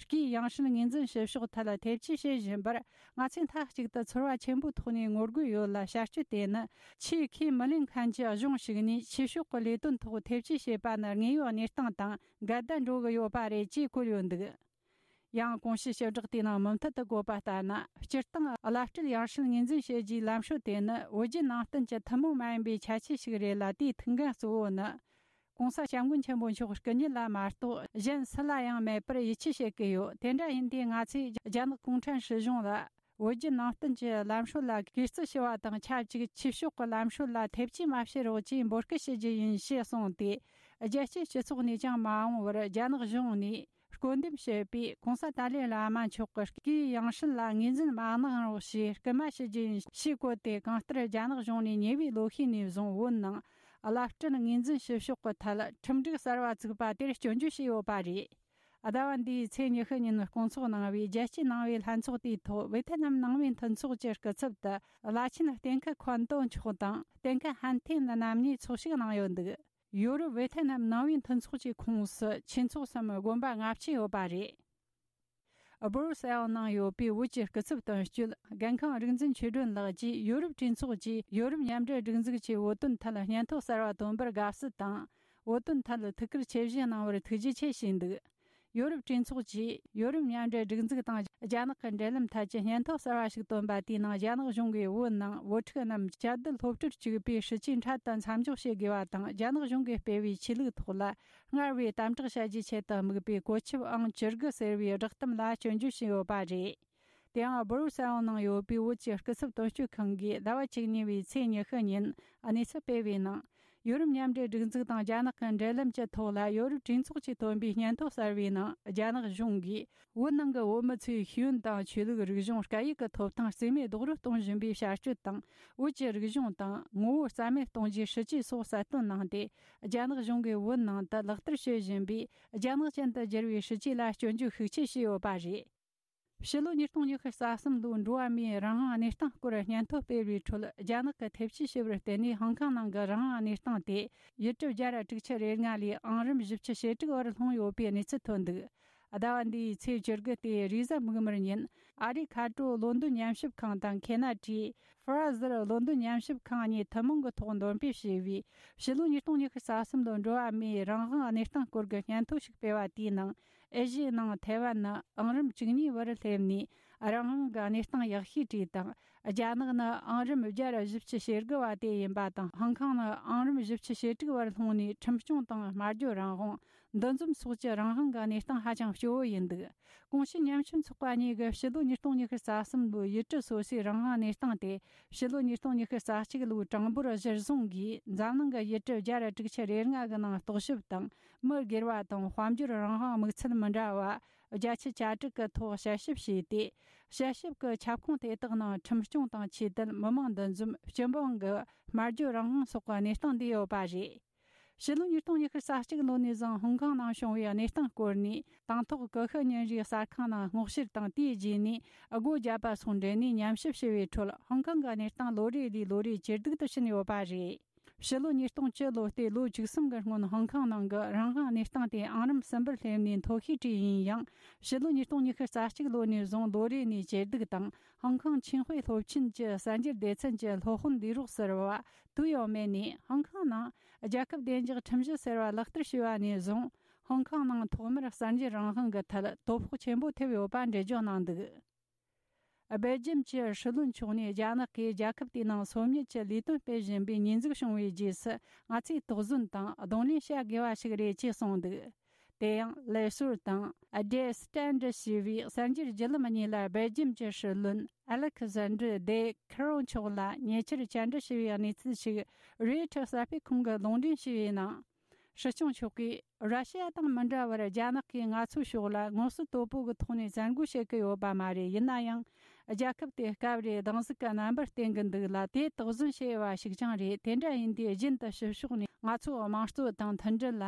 སྐུའི་ཡང་སྲིད་ངོས་འཛིན་ཞུ་ཕྱོགས་ཐད་ལ་ཐེ་བྱུས་བྱེད་བཞིན་པར། ང་ཚོས་མཐའ་གཅིག་ཏུ་ཚོར་བ་ཆེན་པོའི་ཐོག་ནས་ངོ་རྒོལ་ཡོད་ལ། བྱ་སྤྱོད་དེ་ནི་ཆེས་ཁས་མི་ལེན་མཁན་གྱི་གཞུང་ཞིག་ནས་ཆོས་ཕྱོགས་ཀྱི་ལས་དོན་ཐོག་ཐེ་བྱུས་བྱེད་པ་ནི་དངོས་ཡོད་གནས་སྟངས་དང་འགལ་ཟླ་འགྲོ་གི་ཡོད་པ་རེད་ཅེས་བཀོད་ཡོད་འདུག། ཡང་གོང་ཞུས་ཞིབ་བསྒྲགས་དེའི་ནང་མུ་མཐུད་དུ་བཀོད་པ་ལྟར་ན། སྤྱིར་བཏང་བླ་སྤྲུལ་ཡང་སྲིད་ངོས་འཛིན་བྱེད་རྒྱུའི་ལམ་སྲོལ་དེ་ནི་བོད་བརྒྱུད་ནང་བསྟན་གྱི་ཐུན་མོང་མ་ཡིན་པའི་ཁྱད་ཆོས་ཤིག་རེད་ལ། དེའི་ཐུགས་འགན་གཙོ་བོ་ནི། ༸གོང་ས་༸སྐྱབས་མགོན་ཆེན་པོ་མཆོག་སྐུ་ཉིད་ལ་མ་གཏོགས་གཞན་སུ་ལ་ཡང་མེད་པར་ཡིད་ཆེས་བྱེད་ཀྱི་ཡོད། དེ་འདྲ་ཡིན་དུས་ང་ཚོས་རྒྱ་ནག་གུང་ཁྲན་སྲིད་གཞུང་ལ་བོད་བརྒྱུད་ནང་བསྟན་གྱི་ལམ་སྲོལ་ལ་གུས་བརྩི་ཞུ་བ་དང་ཆབས་ཅིག་ཆོས་ཕྱོགས་ཀྱི་ལམ་སྲོལ་ལ་ཐེ་བྱུས་མ་བྱེད་རོགས་ཅེས་འབོད་སྐུལ་ཞུ་རྒྱུ་ཡིན་ཞེས་གསུངས་ཏེ། རྒྱལ་སྤྱིའི་སྤྱི་ཚོགས་ནས་ཀྱང་མ་འོངས་པར་རྒྱ་ནག་གཞུང་ནས་བསྐོ་འདེམས་བྱས་པའི་༸གོང་ས་ཏཱ་ལའི་བླ་མ་མཆོག་གི་སྐུའི་ཡང་སྲིད་ལ་ངོས་འཛིན་མ་གནང་རོགས་ཞེས་སྐུལ་མ་ཞུ་རྒྱུ་ཡིན་ཞེས་བཀོད་དེ། གང་ལྟར་རྒྱ་ནག་གཞུང་ནས་ཉེ་བའི་ལོ་ཤས་ནས་བཟུང་བོད་ནང་བླ་སྤྲུལ་ངོས་འཛིན་ཞུ་ཕྱོགས་ཀྱི་ཐད་ཁྲིམས་སྒྲིག་གསར་བ་བཙུགས་པ་དེར་སྐྱོན་བརྗོད་བྱས་ཡོད་པ་རེད། ཟླ་བ་འདིའི་ཚེས་ཉི་ཤུ་ཉིན་སྐོང་ཚོགས་གནང་བའི་རྒྱལ་སྤྱིའི་ནང་པའི་ལྷན་ཚོགས་དེའི་ཐོག་ཝེ་ཐེ་ནམ་ནང་པའི་མཐུན་ཚོགས་ཀྱི་སྐུ་ཚབ་ཏུ་བླ་ཆེན་གཏན་ཁ་ཁོན་ཏོ་མཆོག་དང་གཏན་ཁ་ཧན་ཐེན་རྣམ་གཉིས་ཚོགས་ཞུགས་གནང་ཡོད་འདུག། ཡོ་རོབ་ཝེ་ཐེ་ནམ་ནང་པའི་མཐུན་ཚོགས་ཀྱི་ཁོངས་སུ་ཆོས་ཚོགས་སམ་དགོན་པ་ལྔ་བཅུ་ཡོད་པ་རེད། སྦོ་རུ་སེལ་ནང་ཡོད་པའི་བོད་ཀྱི་སྐུ་ཚབ་དོན་གཅོད་རྒན་ཁང་རིག་འཛིན་ཆོས་སྒྲོན་ལགས་ཀྱིས། ཡོ་རོབ་གྲོས་ཚོགས་ཀྱིས་ཡོ་རོབ་མཉམ་འབྲེལ་སྒྲིག་འཛུགས་ཀྱི་བོད་དོན་ཐད་སྙན་ཐོ་གསར་བ་བཏོན་པར་དགའ་བསུ་དང་། བོད་དོན་ཐད་ཐུགས་ཁུར་ཆེ་བཞེས་གནང་བར་ཐུགས་རྗེ་ཆེ་ཞུས་འདུག། ཡོ་རོབ་གྲོས་ཚོགས་ཀྱིས་ཡོ་རོབ་མཉམ་འབྲེལ་སྒྲིག་འཛུགས་དང་རྒྱ་ནག་གི་འབྲེལ་ལམ་ཐད་ཀྱི་སྙན་ཐོ་གསར་བ་ཞིག་བཏོན་པ་དེའི་ནང་། རྒྱ་ནག་གཞུང་གིས་བོད་ནང་བོད་ཕྲུག་རྣམས་བཅའ་སྡོད་སློབ་གྲྭར་བཅུག་པའི་སྲིད་ཇུས་འཕྲལ་དུ་མཚམས་འཇོག་བྱེད་དགོས་པ་དང་། རྒྱ་ནག་གཞུང་གིས་སྤེལ་བའི་ཆོས་ལུགས་ཐོག་ལ་སྔར་བས་དམ་དྲག་བྱ་རྒྱུའི་ཆེད་དུ་དམིགས་པའི་བཀོད་ཁྱབ་ཨང་བཅུ་དགུ་ཟེར་བའི་བསྒྲགས་གཏམ་ལ་སྐྱོན་བརྗོད་བྱས་ཡོད་པ་རེད། དེ་ཡང་སྦོ་རུ་སེལ་ནང་ཡོད་པའི་བོད་ཀྱི་སྐུ་ཚབ་དོན་གཅོད་ཁང་གིས་ཟླ་བ་བཅུ་གཉིས་པའི་ཚེས་ཉི་ཤུ་ཉིན་གནས་ཚུལ་སྤེལ་བའི་ནང་། ཡོ་རོབ་མཉམ་འབྲེལ་སྒྲིག་འཛུགས་དང་རྒྱ་ནག་གི་འབྲེལ་ལམ་གྱི་ཐོག་ལ། ཡོ་རོབ་གྲོས་ཚོགས་ཀྱིས་བཏོན་པའི་སྙན་ཐོ་གསར་བའི་ནང་། རྒྱ་ནག་གཞུང་གིས་བོད་ནང་གི་བོད་མི་ཚོའི་ཤེས་ཡོན་དང་ཆོས་ལུགས། རིག་གཞུང་། སྐད་ཡིག་གི་ཐོབ་ཐང་རྩིས་མེད་རྡོག་རོལ་གཏོང་བཞིན་པའི་བྱ་སྤྱོད་དང་། བོད་ཀྱི་རིག་གཞུང་དང་ངོ་བོ་རྩ་མེད་གཏོང་རྒྱུའི་སྲིད་ཇུས་སོགས་གསལ་སྟོན་གནང་སྟེ། རྒྱ་ནག་གཞུང་གིས་བོད་ནང་དུ་ལག་བསྟར་བྱེད་བཞིན་པའི་རྒྱ་ནག་ཅན་དུ་བསྒྱུར་བའི་སྲིད་ཇུས་ལ་སྐྱོན་བརྗོད་ཤུགས་ཆེ་བྱས་ཡོད་པ་རེད། ཕྱི་ལོ་ཉིས་སྟོང་ཉི་ཤུ་རྩ་གསུམ་ལོའི་འགྲོ་བ་མིའི་རང་དབང་གནས་སྟངས་སྐོར་སྙན་ཐོ་སྤེལ་བའི་ཁྲོད། རྒྱ་ནག་གི་ཐེ་བྱུས་ཞུ་བར་བརྟེན་ནས་ཧོང་ཀོང་ནང་གི་རང་དབང་གནས་སྟངས་དེ་ཡུལ་གྲུ་བརྒྱ་དྲུག་ཅུ་རེ་ལྔ་ལས་ཨང་རིམ་བཞི་བཅུ་ཞེ་དྲུག་བར་ལྷུང་ཡོད་པའི་གནས་ཚུལ་ཐོན་འདུག། ཟླ་བ་འདིའི་ཚེས་བཅུ་དགུ་སྟེ་རེས་གཟའ་མིག་དམར་ཉིན། ཨ་རིའི་མཁའ་འགྲོ་ལོན་ཏོན་ཉམས་ཞིབ་ཁང་དང་ཁེ་ན་ཌའི་ཧྥ་ར་ཟར་ལོན་ཏོན་ཉམས་ཞིབ་ཁང་གཉིས་ཐུན་མོང་གི་ཐོག་འདོན་སྤེལ་བྱས་པའི་ཕྱི་ལོ་ཉིས་སྟོང་ཉི་ཤུ་རྩ་གསུམ་ལོའི་འགྲོ་བ་མིའི་རང་དབང་གནས་སྟངས་སྐོར་གྱི་སྙན་ཐོ་ཞིག་སྤེལ་བ་དེའི་ནང་། ཨེ་ཤི་ཡའི་ནང་ཐའེ་ཝན་ནི་ཨང་རིམ་བཅུ་གཉིས་བར་སླེབས་ནས། རང་དབང་གི་གནས་སྟངས་ཡག་ཤོས་བྲིས་དང་། རྒྱ་ནག་ནི་ཨང་རིམ་བརྒྱ་དྲུག་ཅུ་ཞེ་དགུ་བ་དེ་ཡིན་པ་དང་། ཧོང་ཀོང་ནི་ཨང་རིམ་བཞི་བཅུ་ཞེ་དྲུག་བར་ལྷུང་ནས། ཁྲིམས་སྐྱོང་དང་སྨྲ་བརྗོད་རང་དབང་། འདུ་འཛོམས་སོགས་ཀྱི་རང་དབང་གི་གནས་སྟངས་ཧ་ཅང་སྐྱོ་བོ་ཡིན་འདུག། གོང་ཞུས་ཉམ་ཆུང་ཚོགས་པ་གཉིས་ཀྱིས་ཕྱི་ལོ་ཉིས་སྟོང་ཉི་ཤུ་རྩ་གསུམ་ལོའི་ཡུལ་གྲུ་སོ་སོའི་རང་དབང་གནས་སྟངས་དེ། ཕྱི་ལོ་ཉིས་སྟོང་ཉི་ཤུ་རྩ་གཅིག་ལོའི་གྲངས་འབོར་གཞིར་བཟུང་གིས། འཛམ་གླིང་གི་ཡུལ་གྲུ་བརྒྱ་དྲུག་ཅུ་རེ་ལྔ་གི་ནང་རྟོག་ཞིབ་དང་། མི་སྒེར་བ་དང་དཔལ་འབྱོར་རང་དབང་དམིགས་ཚད་མི་འདྲ་བ་བརྒྱད་ཅུ་གྱ་དྲུག་གི་ཐོག་དཔྱད་ཞིབ་བྱས་ཏེ། དཔྱད་ཞིབ་ཀྱི་ཁྱབ་ཁོངས་དེ་དག་ནང་ཁྲིམས་སྐྱོང་དང་ཆོས་དད། མི་མང་འདུ་འཛོམས། སྤྱི་འབངས་ཀྱི་སྨྲ་བརྗོད་རང་དབང་སོགས་ཀྱི་གནས་སྟངས་འདུས་ཡོད་པ་རེད། ཕྱི་ལོ་ཉིས་སྟོང་ཉི་ཤུ་རྩ་གཅིག་ལོ་ནས་བཟུང་ཧོང་ཀོང་ནང་བྱུང་བའི་གནས་སྟངས་སྐོར་ནས། དང་ཐོག་ཀུ་ཤུ་ཉིན་རེའི་གསར་ཁང་ནང་སྔོག་བཤེར་དང་། དེའི་རྗེས་ནས་སྒོ་བརྒྱབ་པ་སོགས་འབྲེལ་ནས་ཉམས་ཞིབ་བྱས་པའི་ཁྲོད། ཧོང་ཀོང་གི་གནས་སྟངས་ལོ་རེ་ལས་ལོ་རེ་ཇེ་སྡུག་ཏུ་ཕྱིན་ཡོད་པ་རེད། ཕྱི་ལོ་ཉིས་སྟོང་བཅུ་ལོ་སྟེ་ལོ་བཅུ་གསུམ་གྱི་སྔོན། ཧོང་ཀོང་ནང་གི་རང་དབང་གནས་སྟངས་དེ་ཨང་རིམ་གསུམ་པར་སླེབས་ནས་མཐོ་ཤོས་བྲིས་ཡིན་ཡང་། ཕྱི་ལོ་ཉིས་སྟོང་ཉི་ཤུ་རྩ་གཅིག་ལོ་ནས་བཟུང་ལོ་རེ་ནས་ཇེ་སྡུག་དང་། ཧོང་ཀོང་ཆིང་ཧུའེ་སློབ་ཆེན་གྱི་གསར་འགྱུར་སྡེ་ཚན་གྱི་སློབ་དཔོན་ལས་རོགས་ཟུར་པ་ཏུའུ་ཡའོ་མེ་ནས། ཧོང་ཀོང་ནང་རྒྱལ་ཁབ་བདེ་འཇགས་ཁྲིམས་གཞི་ཟེར་བ་ལག་བསྟར་བྱས་པ་ནས་བཟུང་། ཧོང་ཀོང་ནང་ཐོག་མར་གསར་འགྱུར་རང་དབང་གི་ཐད་དོ་ཕོག་ཆེན་པོ་ཐེབས་ཡོད་པ་འགྲེལ་བརྗོད་གནང་འདུག། སྦེལ་ཇམ་གྱི་སྲིད་བློན་མཆོག་ནས། རྒྱ་ནག་གིས་རྒྱལ་ཁབ་དེའི་ནང་སོ་ཉུལ་གྱི་ལས་དོན་སྤེལ་བཞིན་པའི་ཉེས་འཛུགས་བྱུང་བའི་རྗེས་སུ། ང་ཚོས་དོགས་ཟོན་དང་གདོང་ལེན་བྱ་དགོས་པ་ཞིག་རེད་ཅེས་གསུངས་འདུག། དེ་ཡང་ལས་ཟུར་དང་ཨ་ཌེ་སི་ཊན་ཌར་ཞེས་པའི་གསར་འགྱུར་བརྒྱུད་ལམ་གཉིས་ལ། སྦེལ་ཇམ་གྱི་སྲིད་བློན་ཨ་ལེག་ཟན་ཌར་ཌེ་ཁི་རོ་མཆོག་ལ་ཉེ་ཆར་བཅར་འདྲི་བྱས་པའི་གནས་ཚུལ་ཞིག་རོའི་ཊར་གསར་སྤེལ་ཁང་གིས་ལུང་འདྲེན་བྱས་པའི་ནང་། སྲིད་སྐྱོང་མཆོག་གིས། ར་ཤི་ཡ་དང་མི་འདྲ་བར་རྒྱ་ནག་གིས་ང་ཚོའི་ཕྱོགས་ལ་ངོ་སོ་དོད་པོ་གི་ཐོག་ནས་བཙན་རྒོལ་བྱེད་ཀྱི་ཡོད་པ་མ་རེད། ཡིན་ན་ཡང་། རྒྱལ་ཁབ་དེ་སྐབས་རེ་སྡང་ཟུག་གི་རྣམ་པར་བསྟན་གྱི་འདུག་ལ། དེ་དོགས་ཟོན་བྱེད་དབྱེ་བ་ཞིག་ཀྱང་རེད། དེ་འདྲ་ཡིན་དུས་རྒྱུན་དུ་ཕྱི་ཕྱོགས་ནས་ང་ཚོའི་དམངས་གཙོ་དང་མཐུན་སྒྲིལ་ལ་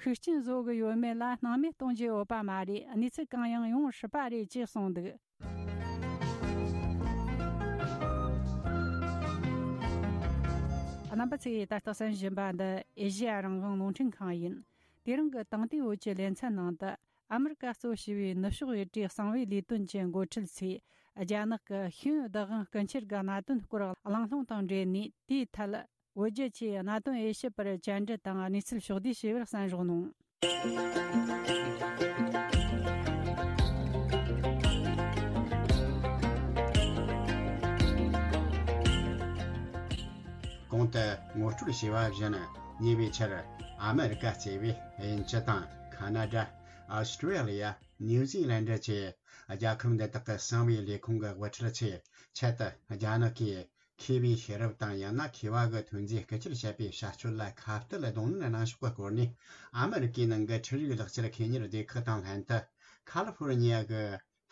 ཤུགས་རྐྱེན་བཟོ་གི་ཡོད་མེད་ལ་སྣང་མེད་གཏོང་རྒྱུ་ཡོད་པ་མ་རེད། གནས་ཚུལ་གང་ཡང་ཡོང་སྲིད་པ་རེད་ཅེས་གསུངས་འདུག། རྣམ་པ་ཚོས་ད་ལྟ་གསན་བཞིན་པ་འདི་ཨེ་ཤེ་ཡ་རང་དབང་རླུང་འཕྲིན་ཁང་ཡིན། དེ་རིང་གི་དེང་དུས་འོད་ཀྱི་ལེ་ཚན་ནང་དུ། ཨ་མི་རི་ཀ་གཙོ་བྱས་པའི་ནུབ་ཕྱོགས་ཡུལ་གྲུའི་གསང་བའི་ལས་དོན་གྱི་འགོ་ཁྲིད་ཚོས་རྒྱ་ནག་གི་ཤེས་ཡོན་བདག་དབང་རྐུ་འཁྱེར་གྱི་གནད་དོན་སྐོར་གླེང་སློང་དང་འབྲེལ་ནས། དེའི་ཐད་བོད་རྒྱ་བཅས་གནད་དོན་དབྱེ་ཞིབ་པར་བཅར་འདྲི་དང་གནས་ཚུལ་ཕྱོགས་བསྡུས་ཞུས་པར་གསན་རོགས་གནང་། གོང་དུ་ངོ་སྤྲོད་བྱས་པ་བཞིན། ཉེ་བའི་ཆར་ཨ་མི་རི་ཀ་གཙོས་པའི་དབྱིན་ཇི་དང་ཁ་ན་ཌ། ཨོ་སི་ཀྲི་ལི་ཡ། ནིའུ་ཛི་ལན་ཌ་བཅས་རྒྱལ་ཁབ་འདི་དག་གི་གསང་བའི་ལས་ཁུངས་ཀྱི་དབུ་ཁྲིད་ཚོས་ཆེད་དུ་རྒྱ་ནག་གིས་མཁས་པའི་ཤེས་རབ་དང་ཡང་ན་མཁས་པ་གི་ཐོན་རྫས་རྐུ་འཁྱེར་བྱས་པའི་བྱ་སྤྱོད་ལ་ཁ་གཏད་གདོང་ལེན་གནང་ཕྱོགས་ཀྱི་སྐོར་ནས། ཨ་མི་རི་ཀའི་ནང་གི་འཕྲུལ་རིག་ལག་རྩལ་མཁས་གཉེར་སྡེ་ཁག་དང་ལྷན་དུ། ཁ་ལི་ཧྥོར་ནི་ཡ་གི་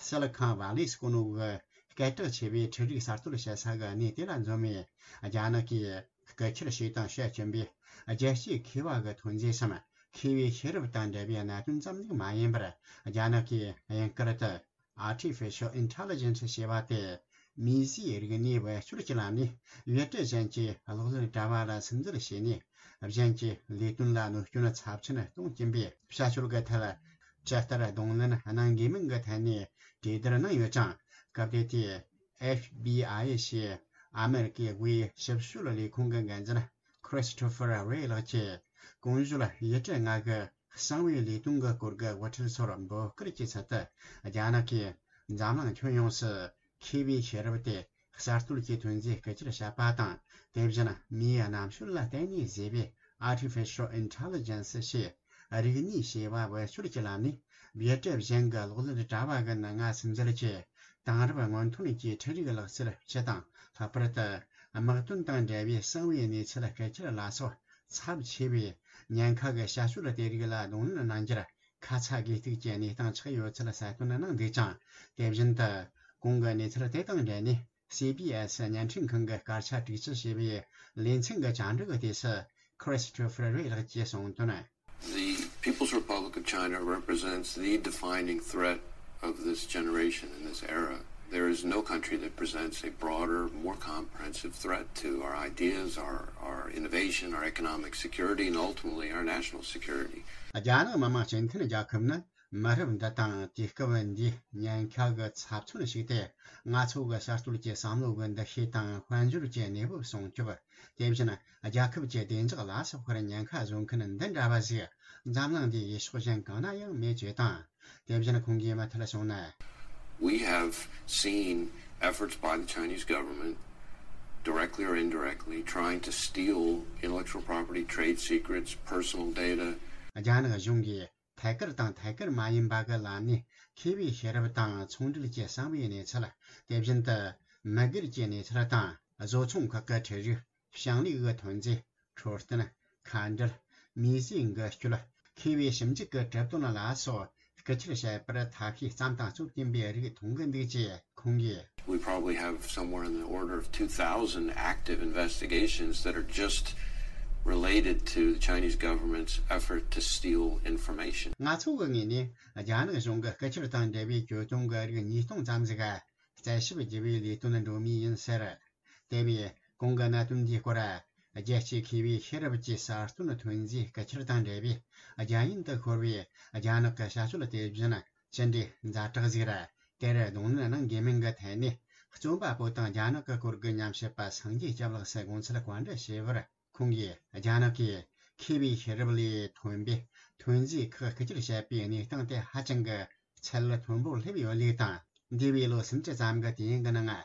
སི་ལི་ཁོན་ཝ་ལི་ཟེར་གོ་ནོ་གི་སྐད་གྲགས་ཆེ་བའི་འཕྲུལ་རིག་གསར་གཏོད་བྱེད་ས་གི་གནས་དེ་ལ་འཛོམས་ནས། རྒྱ་ནག་གིས་རྐུ་འཁྱེར་བྱས་དང་བྱེད་བཞིན་པའི་རྒྱལ་སྤྱིའི་མཁས་པ་གི་ཐོན་རྫས་སམ། མཁས་པའི་ཤེས་རབ་དང་འབྲེལ་བའི་གནད་དོན་ཙམ་ཞིག་མ་ཡིན་པར། རྒྱ་ནག་གིས་དབྱིན་སྐད་དུ་Artificial Intelligence ཞེས་པ་དེ། མིས་བཟོས་རིག་གནས་བེད་སྤྱོད་ཀྱི་ལམ་ནས་ཡུལ་གྲུ་གཞན་གྱི་གློག་ཀླད་དྲ་བ་ལ་སིམ་འཛུལ་བྱས་ནས། གཞན་གྱི་ལས་དོན་ལ་གནོད་སྐྱོན་ཚབས་ཆེན་གཏོང་གྱིན་པའི་བྱ་སྤྱོད་ཀྱི་ཐད། ཇི་ལྟར་གདོང་ལེན་གནང་དགོས་མིན་གྱི་ཐད་ནས་གྲོས་བསྡུར་གནང་ཡོད་ཅིང་། སྐབས་དེ་དུས་ཨེཕ་བི་ཨའི་ཞེས་ཨ་མེ་རི་ཀའི་དབུས་ཞིབ་དཔྱོད་ལས་ཁུངས་ཀྱི་འགན་འཛིན་Christopher Wray ལགས་ཀྱིས། གོང་ཞུས་ཡུལ་གྲུ་ལྔ་གི་གསང་བའི་ལས་དོན་གྱི་སྐོར་གྱི་དབུ་ཁྲིད་ཚོར་འབོད་སྐུལ་གྱི་ཚུལ་དུ། རྒྱ་ནག་གིས་འཛམ་གླིང་ཁྱོན་ཡོངས་སུ་མཁས་པའི་ཤེས་རབ་དེ་གསར་གཏོད་ཀྱི་ཐོན་རྫས་རྐུ་འཁྱེར་བྱས་པ་དང་། དེ་བཞིན་མིའི་རྣམ་དཔྱོད་ལ་བརྟེན་ནས་བཟོས་པའི་Artificial Intelligence ཞེས་རིག་ནུས་ཞེས་པ་བེད་སྤྱོད་ཀྱི་ལམ་ནས་ཡུལ་གྲུ་གཞན་གྱི་གློག་ཀླད་དྲ་བ་གི་ནང་ང་སིམ་འཛུལ་གྱིས། དེང་རབས་སྔོན་ཐོན་གྱི་འཕྲུལ་རིག་ལག་རྩལ་སྤྱི་དང་། ལྷག་པར་དུ་དམག་དོན་དང་འབྲེལ་བའི་གསང་བའི་གནས་ཚུལ་རྐུ་འཁྱེར་ལ་སོགས་ཚབས་ཆེ་བའི་ཉེན་ཁ་གི་བྱ་སྤྱོད་དེ་རིགས་ལ་གདོང་ལེན་གནང་རྒྱུར་ཁ་ཚ་དགོས་གཏུགས་ཀྱི་གནས་སྟངས་ཆགས་ཡོད་ཚུལ་གསལ་སྟོན་གནང་འདུག་ཅིང་། དེ་བཞིན་དུ་གོང་གི་གནས་ཚུལ་དེ་དང་འབྲེལ་ནས། སི་བི་ཨེ་སི་བརྙན་འཕྲིན་ཁང་གི་སྐད་ཆ་དྲུག་ཅུ་ཞེས་པའི་ལེ་ཚན་གྱི་བཅར་འདྲི་གི་དུས་སུ། Christopher Wray ལགས་ཀྱིས་གསུངས་དོན། The People's Republic of China represents the defining threat of this generation and this era. There is no country that presents a broader, more comprehensive threat to our ideas, our, our innovation, our economic security, and ultimately our national security. རྒྱ་ནག་མི་དམངས་སྤྱི་མཐུན་རྒྱལ་ཁབ་ནི་མི་རབས་འདི་དང་དུས་སྐབས་འདིའི་ཉེན་ཁ་གི་ཚབ་མཚོན་ཞིག་སྟེ། ང་ཚོ་གི་གསར་གཏོད་ཀྱི་བསམ་བློ་གི་འདུ་ཤེས་དང་དཔལ་འབྱོར་གྱི་གནས་བབ་སྲུང་སྐྱོབ། དེ་བཞིན་རྒྱལ་ཁབ་ཀྱི་བདེ་འཇགས་ལ་སོགས་པར་ཉེན་ཁ་བཟོ་མཁན་འདི་འདྲ་བ་ཞིག་འཛམ་གླིང་འདིའི་ཡུལ་ཕྱོགས་གཞན་གང་ན་ཡང་མེད་ཅེས་དང་། དེ་བཞིན་ཁོང་གིས་མུ་མཐུད་གསུངས་ན། We have seen efforts by the Chinese government, directly or indirectly, trying to steal intellectual property, trade secrets, personal data. རྒྱ་ནག་གཞུང་གིས་ཐད་ཀར་དང་ཐད་ཀར་མ་ཡིན་པ་གི་ལམ་ནས་མཁས་པའི་ཤེས་རབ་དང་ཚོང་འབྲེལ་གྱི་གསང་བའི་གནས་ཚུལ། དེ་བཞིན་དུ་མི་སྒེར་གྱི་གནས་ཚུལ་དང་། བཟོ་ཚོང་ཁག་གི་ཁྲལ་རིགས། ཞིང་ལས་ཀྱི་ཐོན་རྫས། འཕྲོད་བསྟེན། ཁ་འབྲལ། མིས་བཟོས་འགུལ་སྐྱོད། མཁས་པའི་ཞིབ་འཇུག་གི་གྲུབ་དོན་ལ་སོགས་རྐུ་འཁྱེར་བྱས་པར་ཐབས་ཤེས་བརྩམས་དང་རྩོད་ཀྱིན་པའི་རིགས་མཐོང་གི་འདུག་ཅེས་ཁོང་གིས། We probably have somewhere in the order of two thousand active investigations that are just related to the Chinese government's effort to steal information. ང་ཚོ་གི་ངོས་ནས་རྒྱ་ནག་གཞུང་གི་རྐུ་འཁྱེར་དང་འབྲེལ་བའི་གྱོད་དོན་གྱི་རིགས་ཉིས་སྟོང་ཙམ་ཞིག་རྩད་ཞིབ་བགྱི་བའི་ལས་དོན་འགྲོ་མུས་ཡིན་ཟེར། དེ་བས་གོང་གི་གནད་དོན་འདིའི་སྐོར། རྒྱལ་སྤྱིའི་མཁས་པའི་ཤེས་རབ་ཀྱི་གསར་གཏོད་ཐོན་རྫས་རྐུ་འཁྱེར་དང་འབྲེལ་བའི་རྒྱ་ཡན་དུ་ཤོར་བའི་རྒྱ་ནག་གི་བྱ་སྤྱོད་དེ་བཞིན་ཅི་འདྲའི་ཛ་དྲག་ཟིག་རེད། དེར་གདོང་ལེན་གནང་དགོས་མིན་གྱི་ཐད་ནས། རྩོམ་པ་པོ་དང་རྒྱ་ནག་གི་སྐོར་གྱི་ཉམས་ཞིབ་པ་སངས་རྒྱས་སྐྱབས་ལགས་སུ་དགོངས་ཚུལ་བཀའ་འདྲི་ཞུས་པར། ཁོང་གིས་རྒྱ་ནག་གིས་མཁས་པའི་ཤེས་རབ་ལས་ཐོན་པའི་ཐོན་རྫས་ཁག་རྐུ་འཁྱེར་བྱས་པའི་གནས་སྟངས་དེ་ཧ་ཅང་གི་ཚད་མཐོན་པོར་སླེབས་ཡོད་ལུགས་དང་། འདས་པའི་ལོ་སུམ་ཅུ་ཙམ་གྱི་དུས་ཡུན་གྱི་ནང་།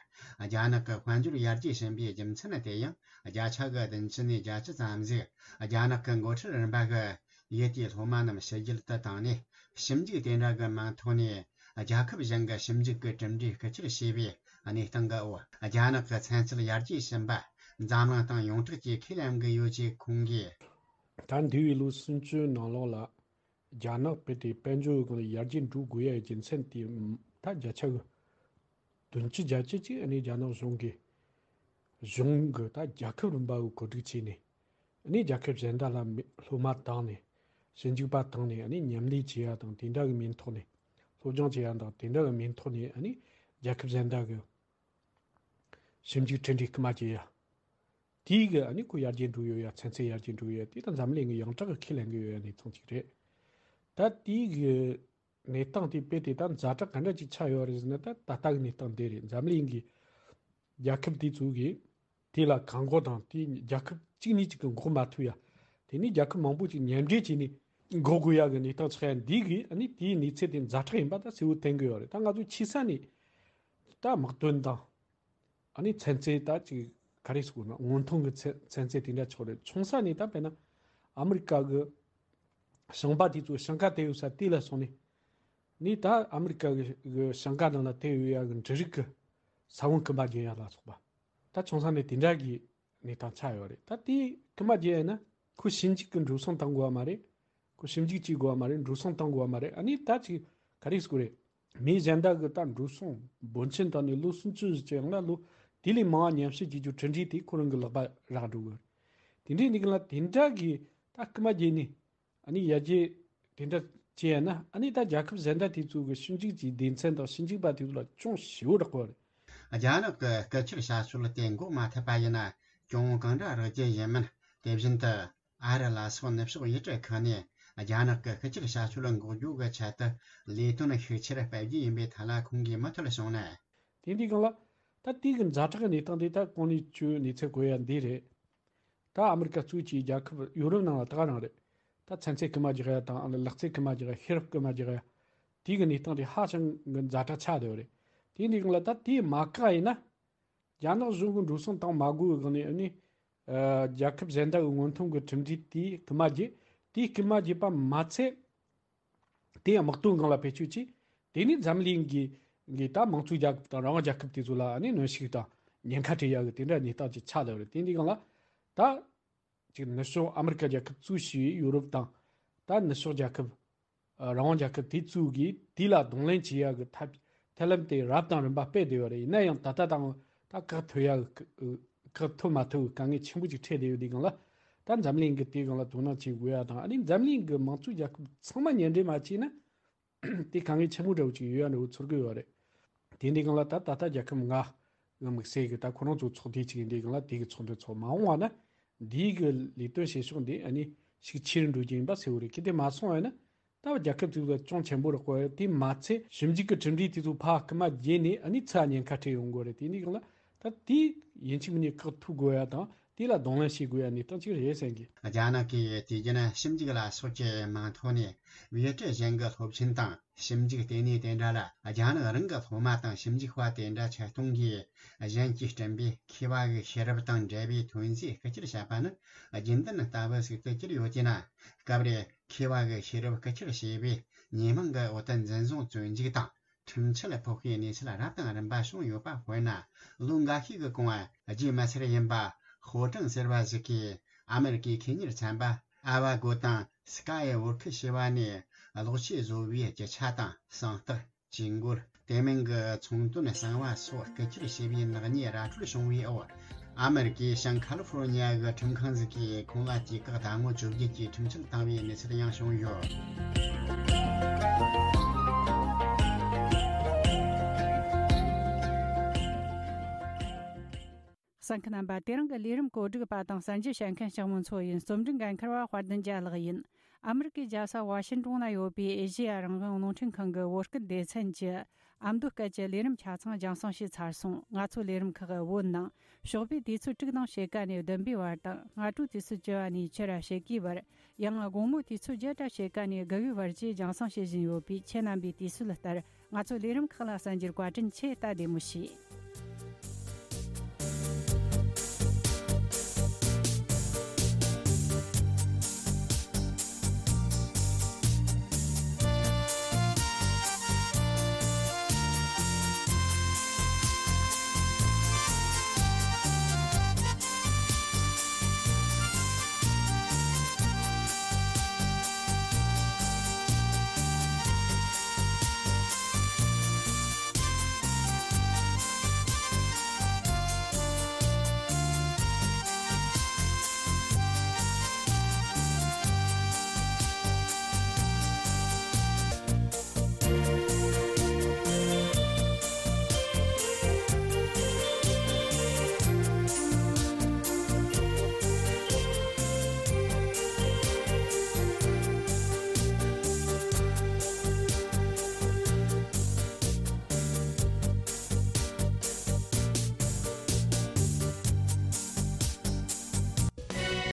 རྒྱ་ནག་གི་དཔལ་འབྱོར་ཡར་རྒྱས་ཕྱིན་པའི་རྒྱུ་མཚན་དེ་ཡང་བརྒྱ་ཆ་གི་བདུན་ཅུ་ནས་བརྒྱད་ཅུ་ཙམ་ཞིག་རྒྱ་ནག་གི་འགོ་ཁྲིད་རིམ་པ་གི་ཡུལ་དེའི་སློབ་མ་རྣམས་ཕྱི་རྒྱལ་དུ་བཏང་ནས། ཞིབ་འཇུག་དེ་འདྲ་གི་མིང་ཐོག་ནས་རྒྱལ་ཁབ་གཞན་གྱི་ཞིབ་འཇུག་གི་གྲུབ་འབྲས་རྐུ་འཁྱེར་བྱས་པའི་གནས་སྟངས་ཀྱི་འོག་རྒྱ་ནག་གི་ཚན་རྩལ་ཡར་རྒྱས་ཕྱིན་པ་འཛམ་གླིང་དང་ཡོངས་གྲགས་ཀྱི་ཁས་ལེན་གྱི་ཡོད་ཅེས་ཁོང་གིས། ད་འདས་པའི་ལོ་སུམ་ཅུ་ནང་ལོགས་ལ་རྒྱ་ནག་དཔེ་དེ་དཔལ་འབྱོར་གྱི་སྒང་ལ་ཡར་རྒྱས་འགྲོ་དགོས་ཡ་རྒྱུ་མཚན་དེ་ད་བརྒྱ་ཆ་གི་བདུན་ཅུ་བརྒྱད་ཅུ་ཅིག་ཨ་ནི་རྒྱ་ནག་གཞུང་གིས་གཞུང་གི་ད་རྒྱལ་ཁབ་རིམ་པ་གི་གོ་སྒྲིག་བྱས་ནས། ཨ་ནི་རྒྱལ་ཁབ་གཞན་དག་ལ་མི་སློབ་མ་བཏང་ནས། ཞིབ་འཇུག་པ་བཏང་ནས། ཨ་ནི་མཉམ་ལས་བྱེད་ཡ་དང་དེ་འདྲ་གི་མིང་ཐོག་ནས། སློབ་སྦྱོང་བྱེད་ཡ་དང་དེ་འདྲ་གི་མིང་ཐོག་ནས། ཨ་ནི་རྒྱལ་ཁབ་གཞན་དག་གི་ཞིབ་འཇུག་འཕྲིན་སྦྲེལ་སྐུལ་མ་བྱེད་ཡ། དེའི་གི་ཨ་ནི་ཁོ་ཡར་རྒྱས་འགྲོ་ཡོད་ཡ། ཚན་རྩལ་ཡར་རྒྱས་འགྲོ་ཡོད་ཡ། དེ་ད་འཛམ་གླིང་གི་ཡོངས་གྲགས་གི་ཁས་ལེན་གི་ཡོད་ཡ་གནས་སྟངས་ཅིག་རེད། ད་དེའི་གི་གནས་སྟངས་དེ་དཔེ་དེ་ད་ཛ་དྲག་ག་འདྲ་ཅིག་ཆགས་ཡོད་རེད་ཟེར་ན། ད་ད་ལྟ་གི་གནས་སྟངས་དེ་རེད། འཛམ་གླིང་གི་རྒྱལ་ཁབ་དེ་ཚོ་གིས་དེ་ལ་གང་མགོ་དང་། དེ་རྒྱལ་ཁབ་གཅིག་གཉིས་གཅིག་གི་འགོག་མ་ཐུབ་ཡ། དེ་ནས་རྒྱལ་ཁབ་མང་པོ་ཅིག་མཉམ་འབྲེལ་བྱས་ནས་འགོག་དགོས་ཡ་གི་གནས་སྟངས་ཆགས་ཡ་འདི་གིས། ཨ་ནི་དེའི་གནས་ཚད་དེ་ཛ་དྲག་ཡིན་པ་ད་གསལ་བོ་བསྟན་གི་ཡོད་རེད། ད་ང་ཚོ་ཆེ་ས་ནས་ད་དམག་དོན་དང་། ཨ་ནི་ཚན་རྩལ་ད་ཅིག་ག་རེ་ཟེར་དགོས་ན། སྔོན་ཐོན་གྱི་ཚན་ཚན་རྩལ་དེ་འདྲ་ཆགས་རེད། ཆུང་ས་ནས་ད་དཔེར་ན་ཨ་མི་རི་ཀ་གི་ཞིང་པ་དེ་ཚོ་ཞིང་ཁ་དེད་ཡོད་ས་དེ་ལ་སོང་ནས། ནས་ད་ཨ་མི་རི་ཀ་གི་གི་ཞིང་ཁ་ནང་ལ་དེད་ཡོད་ཡ་གི་འབྲུ་རིགས་ཀྱི་ས་བོན་རྐུ་མ་བརྒྱབ་ཡ་ལ་སོགས་པ། ད་ཆུང་ས་ནས་དེ་འདྲ་གི་གནས་སྟངས་ཆགས་ཡོད་རེད། ད་དེ་རྐུ་མ་བརྒྱབ་ཡ་ན་ཁོ་ཞིབ་འཇུག་གི་འགྲོ་སོང་བཏང་དགོས་བ་མ་རེད། ཁོ་ཞིབ་འཇུག་བྱེད་དགོས་བ་མ་རེད། འགྲོ་སོང་བཏང་དགོས་བ་མ་རེད། ཨ་ནི་ད་ཅིག་ག་རེ་ཟེར་དགོས་རེད། མི་གཞན་དག་གི་ད་འགྲོ་སོང་འབོར་ཆེན་བཏང་ནས་ལོ་སུམ་ཅུ་ཙམ་ཡང་ན་ལོ་དེ་ལས་མང་བ་ཉམས་ཞིབ་བྱེད་རྒྱུ་གྲུབ་འབྲས་དེ་ཁོ་རང་གི་ལག་པ་རག་འགྲོ་གི་རེད། དེ་འདྲའི་གནས་སྐབས་ལ་དེ་འདྲ་གི་ད་རྐུ་མ་བརྒྱབ་ནས། ཨ་ནི་ཡར་རྒྱས་དེ་འདྲ་བྱས་ཡ་ན། ཨ་ནི་ད་རྒྱལ་ཁབ་གཞན་དག་དེ་ཚོ་གི་ཞིབ་འཇུག་གི་སྡེ་ཚན་དང་ཞིབ་འཇུག་པ་དེ་ཚོ་ལ་ཅུང་ཞེ་པོ་རག་པ་རེད། རྒྱ་ནག་གི་རྐུ་འཁྱེར་བྱ་སྤྱོད་དེ་འགོག་མ་ཐུབ་པ་ཡིན་ན། གྱོང་གང་འདྲ་རག་རྒྱུ་ཡིན་མིན། དེ་བཞིན་དུ་ཨ་རི་ལ་སོགས་ནུབ་ཕྱོགས་ཡུལ་གྲུ་ཁག་ནས་རྒྱ་ནག་གི་རྐུ་འཁྱེར་བྱ་སྤྱོད་འགོག་རྒྱུ་གི་ཆེད་དུ་ལས་དོན་ཤུགས་ཆེར་སྤེལ་རྒྱུ་ཡིན་པའི་ཐད་ལ་ཁོང་གིས་མུ་མཐུད་གསུངས་ནས། དེ་འདི་སྒང་ལ་ད་དེའི་གི་ཛ་དྲག་གི་གནས་སྟངས་དེ་ད་གོང་ནས་ཁྱོས་གནས་ཚུལ་གོ་ཡ་འདི་རེད། ད་ཨ་མི་རི་ཀ་གཙོས་ཀྱི་རྒྱལ་ཁབ་ཡོ་རོབ་ནང་ལ་ད་ག་རང་རེད། ད་ཚན་རྩལ་རྐུ་མ་རྒྱག་ཡ་དང་། ལག་རྩལ་རྐུ་མ་རྒྱག་ཡ། ཤེས་རབ་རྐུ་མ་རྒྱག་ཡ། དེའི་གི་གནས་སྟངས་དེ་ཧ་ཅང་གི་ཛ་དྲག་ཆགས་བསྡད་ཡོད་རེད། དེ་འདི་སྒང་ལ་ད་དེ་མ་བཀག་ཡིན་ན། རྒྱ་ནག་གཞུང་གི་འགྲོ་སོང་བཏང་མ་དགོས་པའི་སྒང་ནས། ཨ་ནི་ཨ་རྒྱལ་ཁབ་གཞན་དག་གི་སྔོན་ཐོན་གྱི་གྲུབ་འབྲས་དེ་རྐུ་མ་བརྒྱབ། དེ་རྐུ་མ་བརྒྱབ་པ་མ་ཚད། དེ་ཡང་དམག་དོན་སྒང་ལ་བེད་སྤྱོད་བྱས། དེ་ནས་འཛམ་གླིང་གི་གི་ད་དམངས་གཙོའི་རྒྱལ་ཁབ་དང་རང་དབང་རྒྱལ་ཁབ་དེ་ཚོ་ལ་ཨ་ནི་གནོན་ཤུགས་དང་ཉེན་ཁ་སྤྲད་ཡག་གི་དེ་འདྲ་གནས་སྟངས་ཅིག་ཆགས་བསྡད་པ་རེད། དེ་འདི་སྒང་ལ་ད་ཅིག་ནུབ་ཕྱོགས་ཨ་མི་རི་ཀ་རྒྱལ་ཁབ་གཙོས་བྱས་པའི་ཡོ་རོབ་དང་། ད་ནུབ་ཕྱོགས་རྒྱལ་ཁབ། ཨ་རང་དབང་རྒྱལ་ཁབ་དེ་ཚོ་གིས་དེ་ལ་གདོང་ལེན་བྱེད་ཡག་གི་ཐབས་ཐབས་ལམ་དེ་རབ་དང་རིམ་པ་སྤེལ་བསྡད་ཡོད་རེད། ཡིན་ན་ཡང་ད་ལྟ་དང་ད་བཀག་ཐུབ་ཡག་གི་བཀག་ཐུབ་མ་ཐུབ་གི་དཀའ་ངལ་ཆེན་པོ་ཅིག་འཕྲད་བསྡད་ཡོད། དེ་སྒང་ལ་ད་འཛམ་གླིང་གི་དེ་སྒང་ལ་དོ་སྣང་བྱེད་དགོས་ཡ་དང་། ཨ་ནི་འཛམ་གླིང་གི་དམངས་གཙོའི་རྒྱལ་ཁབ་ཚང་མ་མཉམ་འབྲེལ་མ་བྱས་ན། དེ་དཀའ་ངལ་ཆེན་པོ་འདྲ་བོ་ཅིག་ཡོད་ཡ་འདྲ་བོ་ཚོར་གི་ཡོད་རེད། དེ་འདི་སྒང་ལ་ད་ད་ལྟ་རྒྱལ་ཁབ་ལྔ་གི་དམིགས་བསལ་གི་ད་ཁོ་རང་ཚོ་ཚོགས་སྡེ་ཅིག་ཡིན། དེ་སྒང་ལ་དེ་གི་ཚོགས་འདུ་ཚོགས་མ་འོངས་པ་ན་འདིའི་གི་ལས་དོན་བྱེད་ཕྱོགས་འདི་ཨ་ནི་ཤུགས་ཆེ་རུ་འགྲོ་རྒྱུ་ཡིན་པ་གསལ་བོ་རེད། གལ་ཏེ་མ་སོང་བ་ཡིན་ན་ད་རྒྱལ་ཁབ་ཚོ་ལ་ཅུང་ཆེན་པོ་རག་པ་རེད། དེ་མ་ཚད་ཞིབ་འཇུག་གི་གྲུབ་འབྲས་དེ་ཚོ་ཕར་རྐུ་མ་བརྒྱབ་ནས་ཨ་ནི་ཚུར་ཉེན་ཁ་འཕྲད་ཡོང་གི་རེད། དེ་འདི་སྒང་ལ་ད་དེ་ཡིན་གཅིག་མིན་གཉིས་བཀག་ཐུབ་དགོས་ཡ་དང་། དེ་ལ་གདོང་ལེན་བྱེད་དགོས་ཡ་གནས་སྟངས་ཅིག་རེད་བསམ་གི། རྒྱ་ནག་གིས་དུས་རྒྱུན་ཞིབ་འཇུག་ལ་སོགས་ཀྱི་མིང་ཐོག་ནས་བེད་སྤྱོད་གཞན་གྱི་སློབ་ཆེན་དང་། ཞིབ་འཇུག་ལྟེ་གནས་དེ་འདྲ་ལ་རྒྱ་ནག་རང་གི་སློབ་མ་དང་ཞིབ་འཇུག་པ་དེ་འདྲ་ཆེད་གཏོང་གིས་གཞན་གྱིས་བསྐྲུན་པའི་མཁས་པ་གི་ཤེས་རབ་དང་འབྲེལ་བའི་ཐོན་རྫས་རྐུ་འཁྱེར་བྱས་པ་ནི་རྒྱུན་ལྡན་ལྟ་བུ་ཟིག་ཏུ་གྱུར་ཡོད་ཅེ་ན། སྐབས་རེ་མཁས་པ་གི་ཤེས་རབ་རྐུ་འཁྱེར་བྱས་པས་ཉེས་མིང་གི་འོག་ཏུ་འཛིན་བཟུང་བཙོན་འཇུག་དང་ཁྲིམས་ཆད་ཕོག་པའི་གནས་ཚུལ་རབ་དང་རིམ་པ་བྱུང་ཡོད་པ། དཔེར་ན། ལོ་འགའ་ཤས་ཀྱི་གོང་བ་རྒྱུས་མི་སེར་ཡིན་པ་ཧོ་ཀྲང་ཟེར་བ་ཞིག་གིས་ཨ་མེ་རི་ཀའི་ཁེ་གཉེར་ཚན་པ་ཨ་བ་གོ་དང་སི་ཀ་ཡི་བོར་ཁུ་ཞེས་པ་ནས་གློག་ཆས་བཟོ་བའི་རྒྱུ་ཆ་དང་། གསང་རྟགས། ཇུས་འགོད། དེ་མིན་གྱི་ཚོང་དོན་གསང་བ་སོགས་རྐུ་འཁྱེར་བྱས་པའི་ནག་ཉེས་ར་སྤྲོད་བྱུང་བའི་འོག་ཨ་མེ་རི་ཀའི་ཤང་ཁ་ལི་ཧྥོར་ཉི་ཡ་གི་ཁྲིམས་ཁང་ཟིག་གིས་ཁོང་ལ་དུས་བཀག་ཟླ་ངོ་བཅོ་བརྒྱད་ཀྱི་ཁྲིམས་ཆད་བཏང་བའི་གནས་ཚུལ་ཡང་བྱུང་ཡོད། གསན་མཁན་རྣམ་པ། དེ་རིང་གི་ལས་རིམ་གོ་སྒྲིག་པ་དང་གསན་རྒྱུ་བྱེད་མཁན་ལྕགས་མོ་མཚོ་ཡིན། རྩོམ་སྒྲིག་འགན་འཁུར་བ་དཔལ་ལྡན་རྒྱལ་ལགས་ཡིན། ཨ་མི་རི་ཀའི་རྒྱལ་ས་ཝ་ཤིན་ཏོན་ན་ཡོད་པའི་ཨེ་ཤེ་ཡ་རང་དབང་རླུང་འཕྲིན་ཁང་གི་བོད་སྐད་སྡེ་ཚན་གྱི་ཨ་མདོ་སྐད་ཀྱི་ལས་རིམ་ཆ་ཚང་རྒྱང་སྲིང་བྱས་ཚར་སོང་། ང་ཚོའི་ལས་རིམ་ཁག་བོད་ནང་ཞོགས་པའི་དུས་ཚོད་དྲུག་དང་ཕྱེད་ཀ་ནས་བདུན་པའི་བར་དང་། སྔ་དྲོའི་དུས་ཚོད་བཅུ་པ་ནས་ཕྱི་ར་ཕྱེད་ཀའི་བར། ཡང་དགོང་མོའི་དུས་ཚོད་བརྒྱད་དང་ཕྱེད་ཀ་ནས་དགུ་པའི་བར་བཅས་རྒྱང་སྲིང་བྱེད་བཞིན་ཡོད་པས། ཁྱེད་རྣམ་པས་དུས་ཚོད་ལྟར་ང་ཚོའི་ལས་རིམ་ཁག་ལ་གསན་རྒྱུར་བཀའ་དྲིན་ཆེ། ད་བདེ་མོ་བྱོས།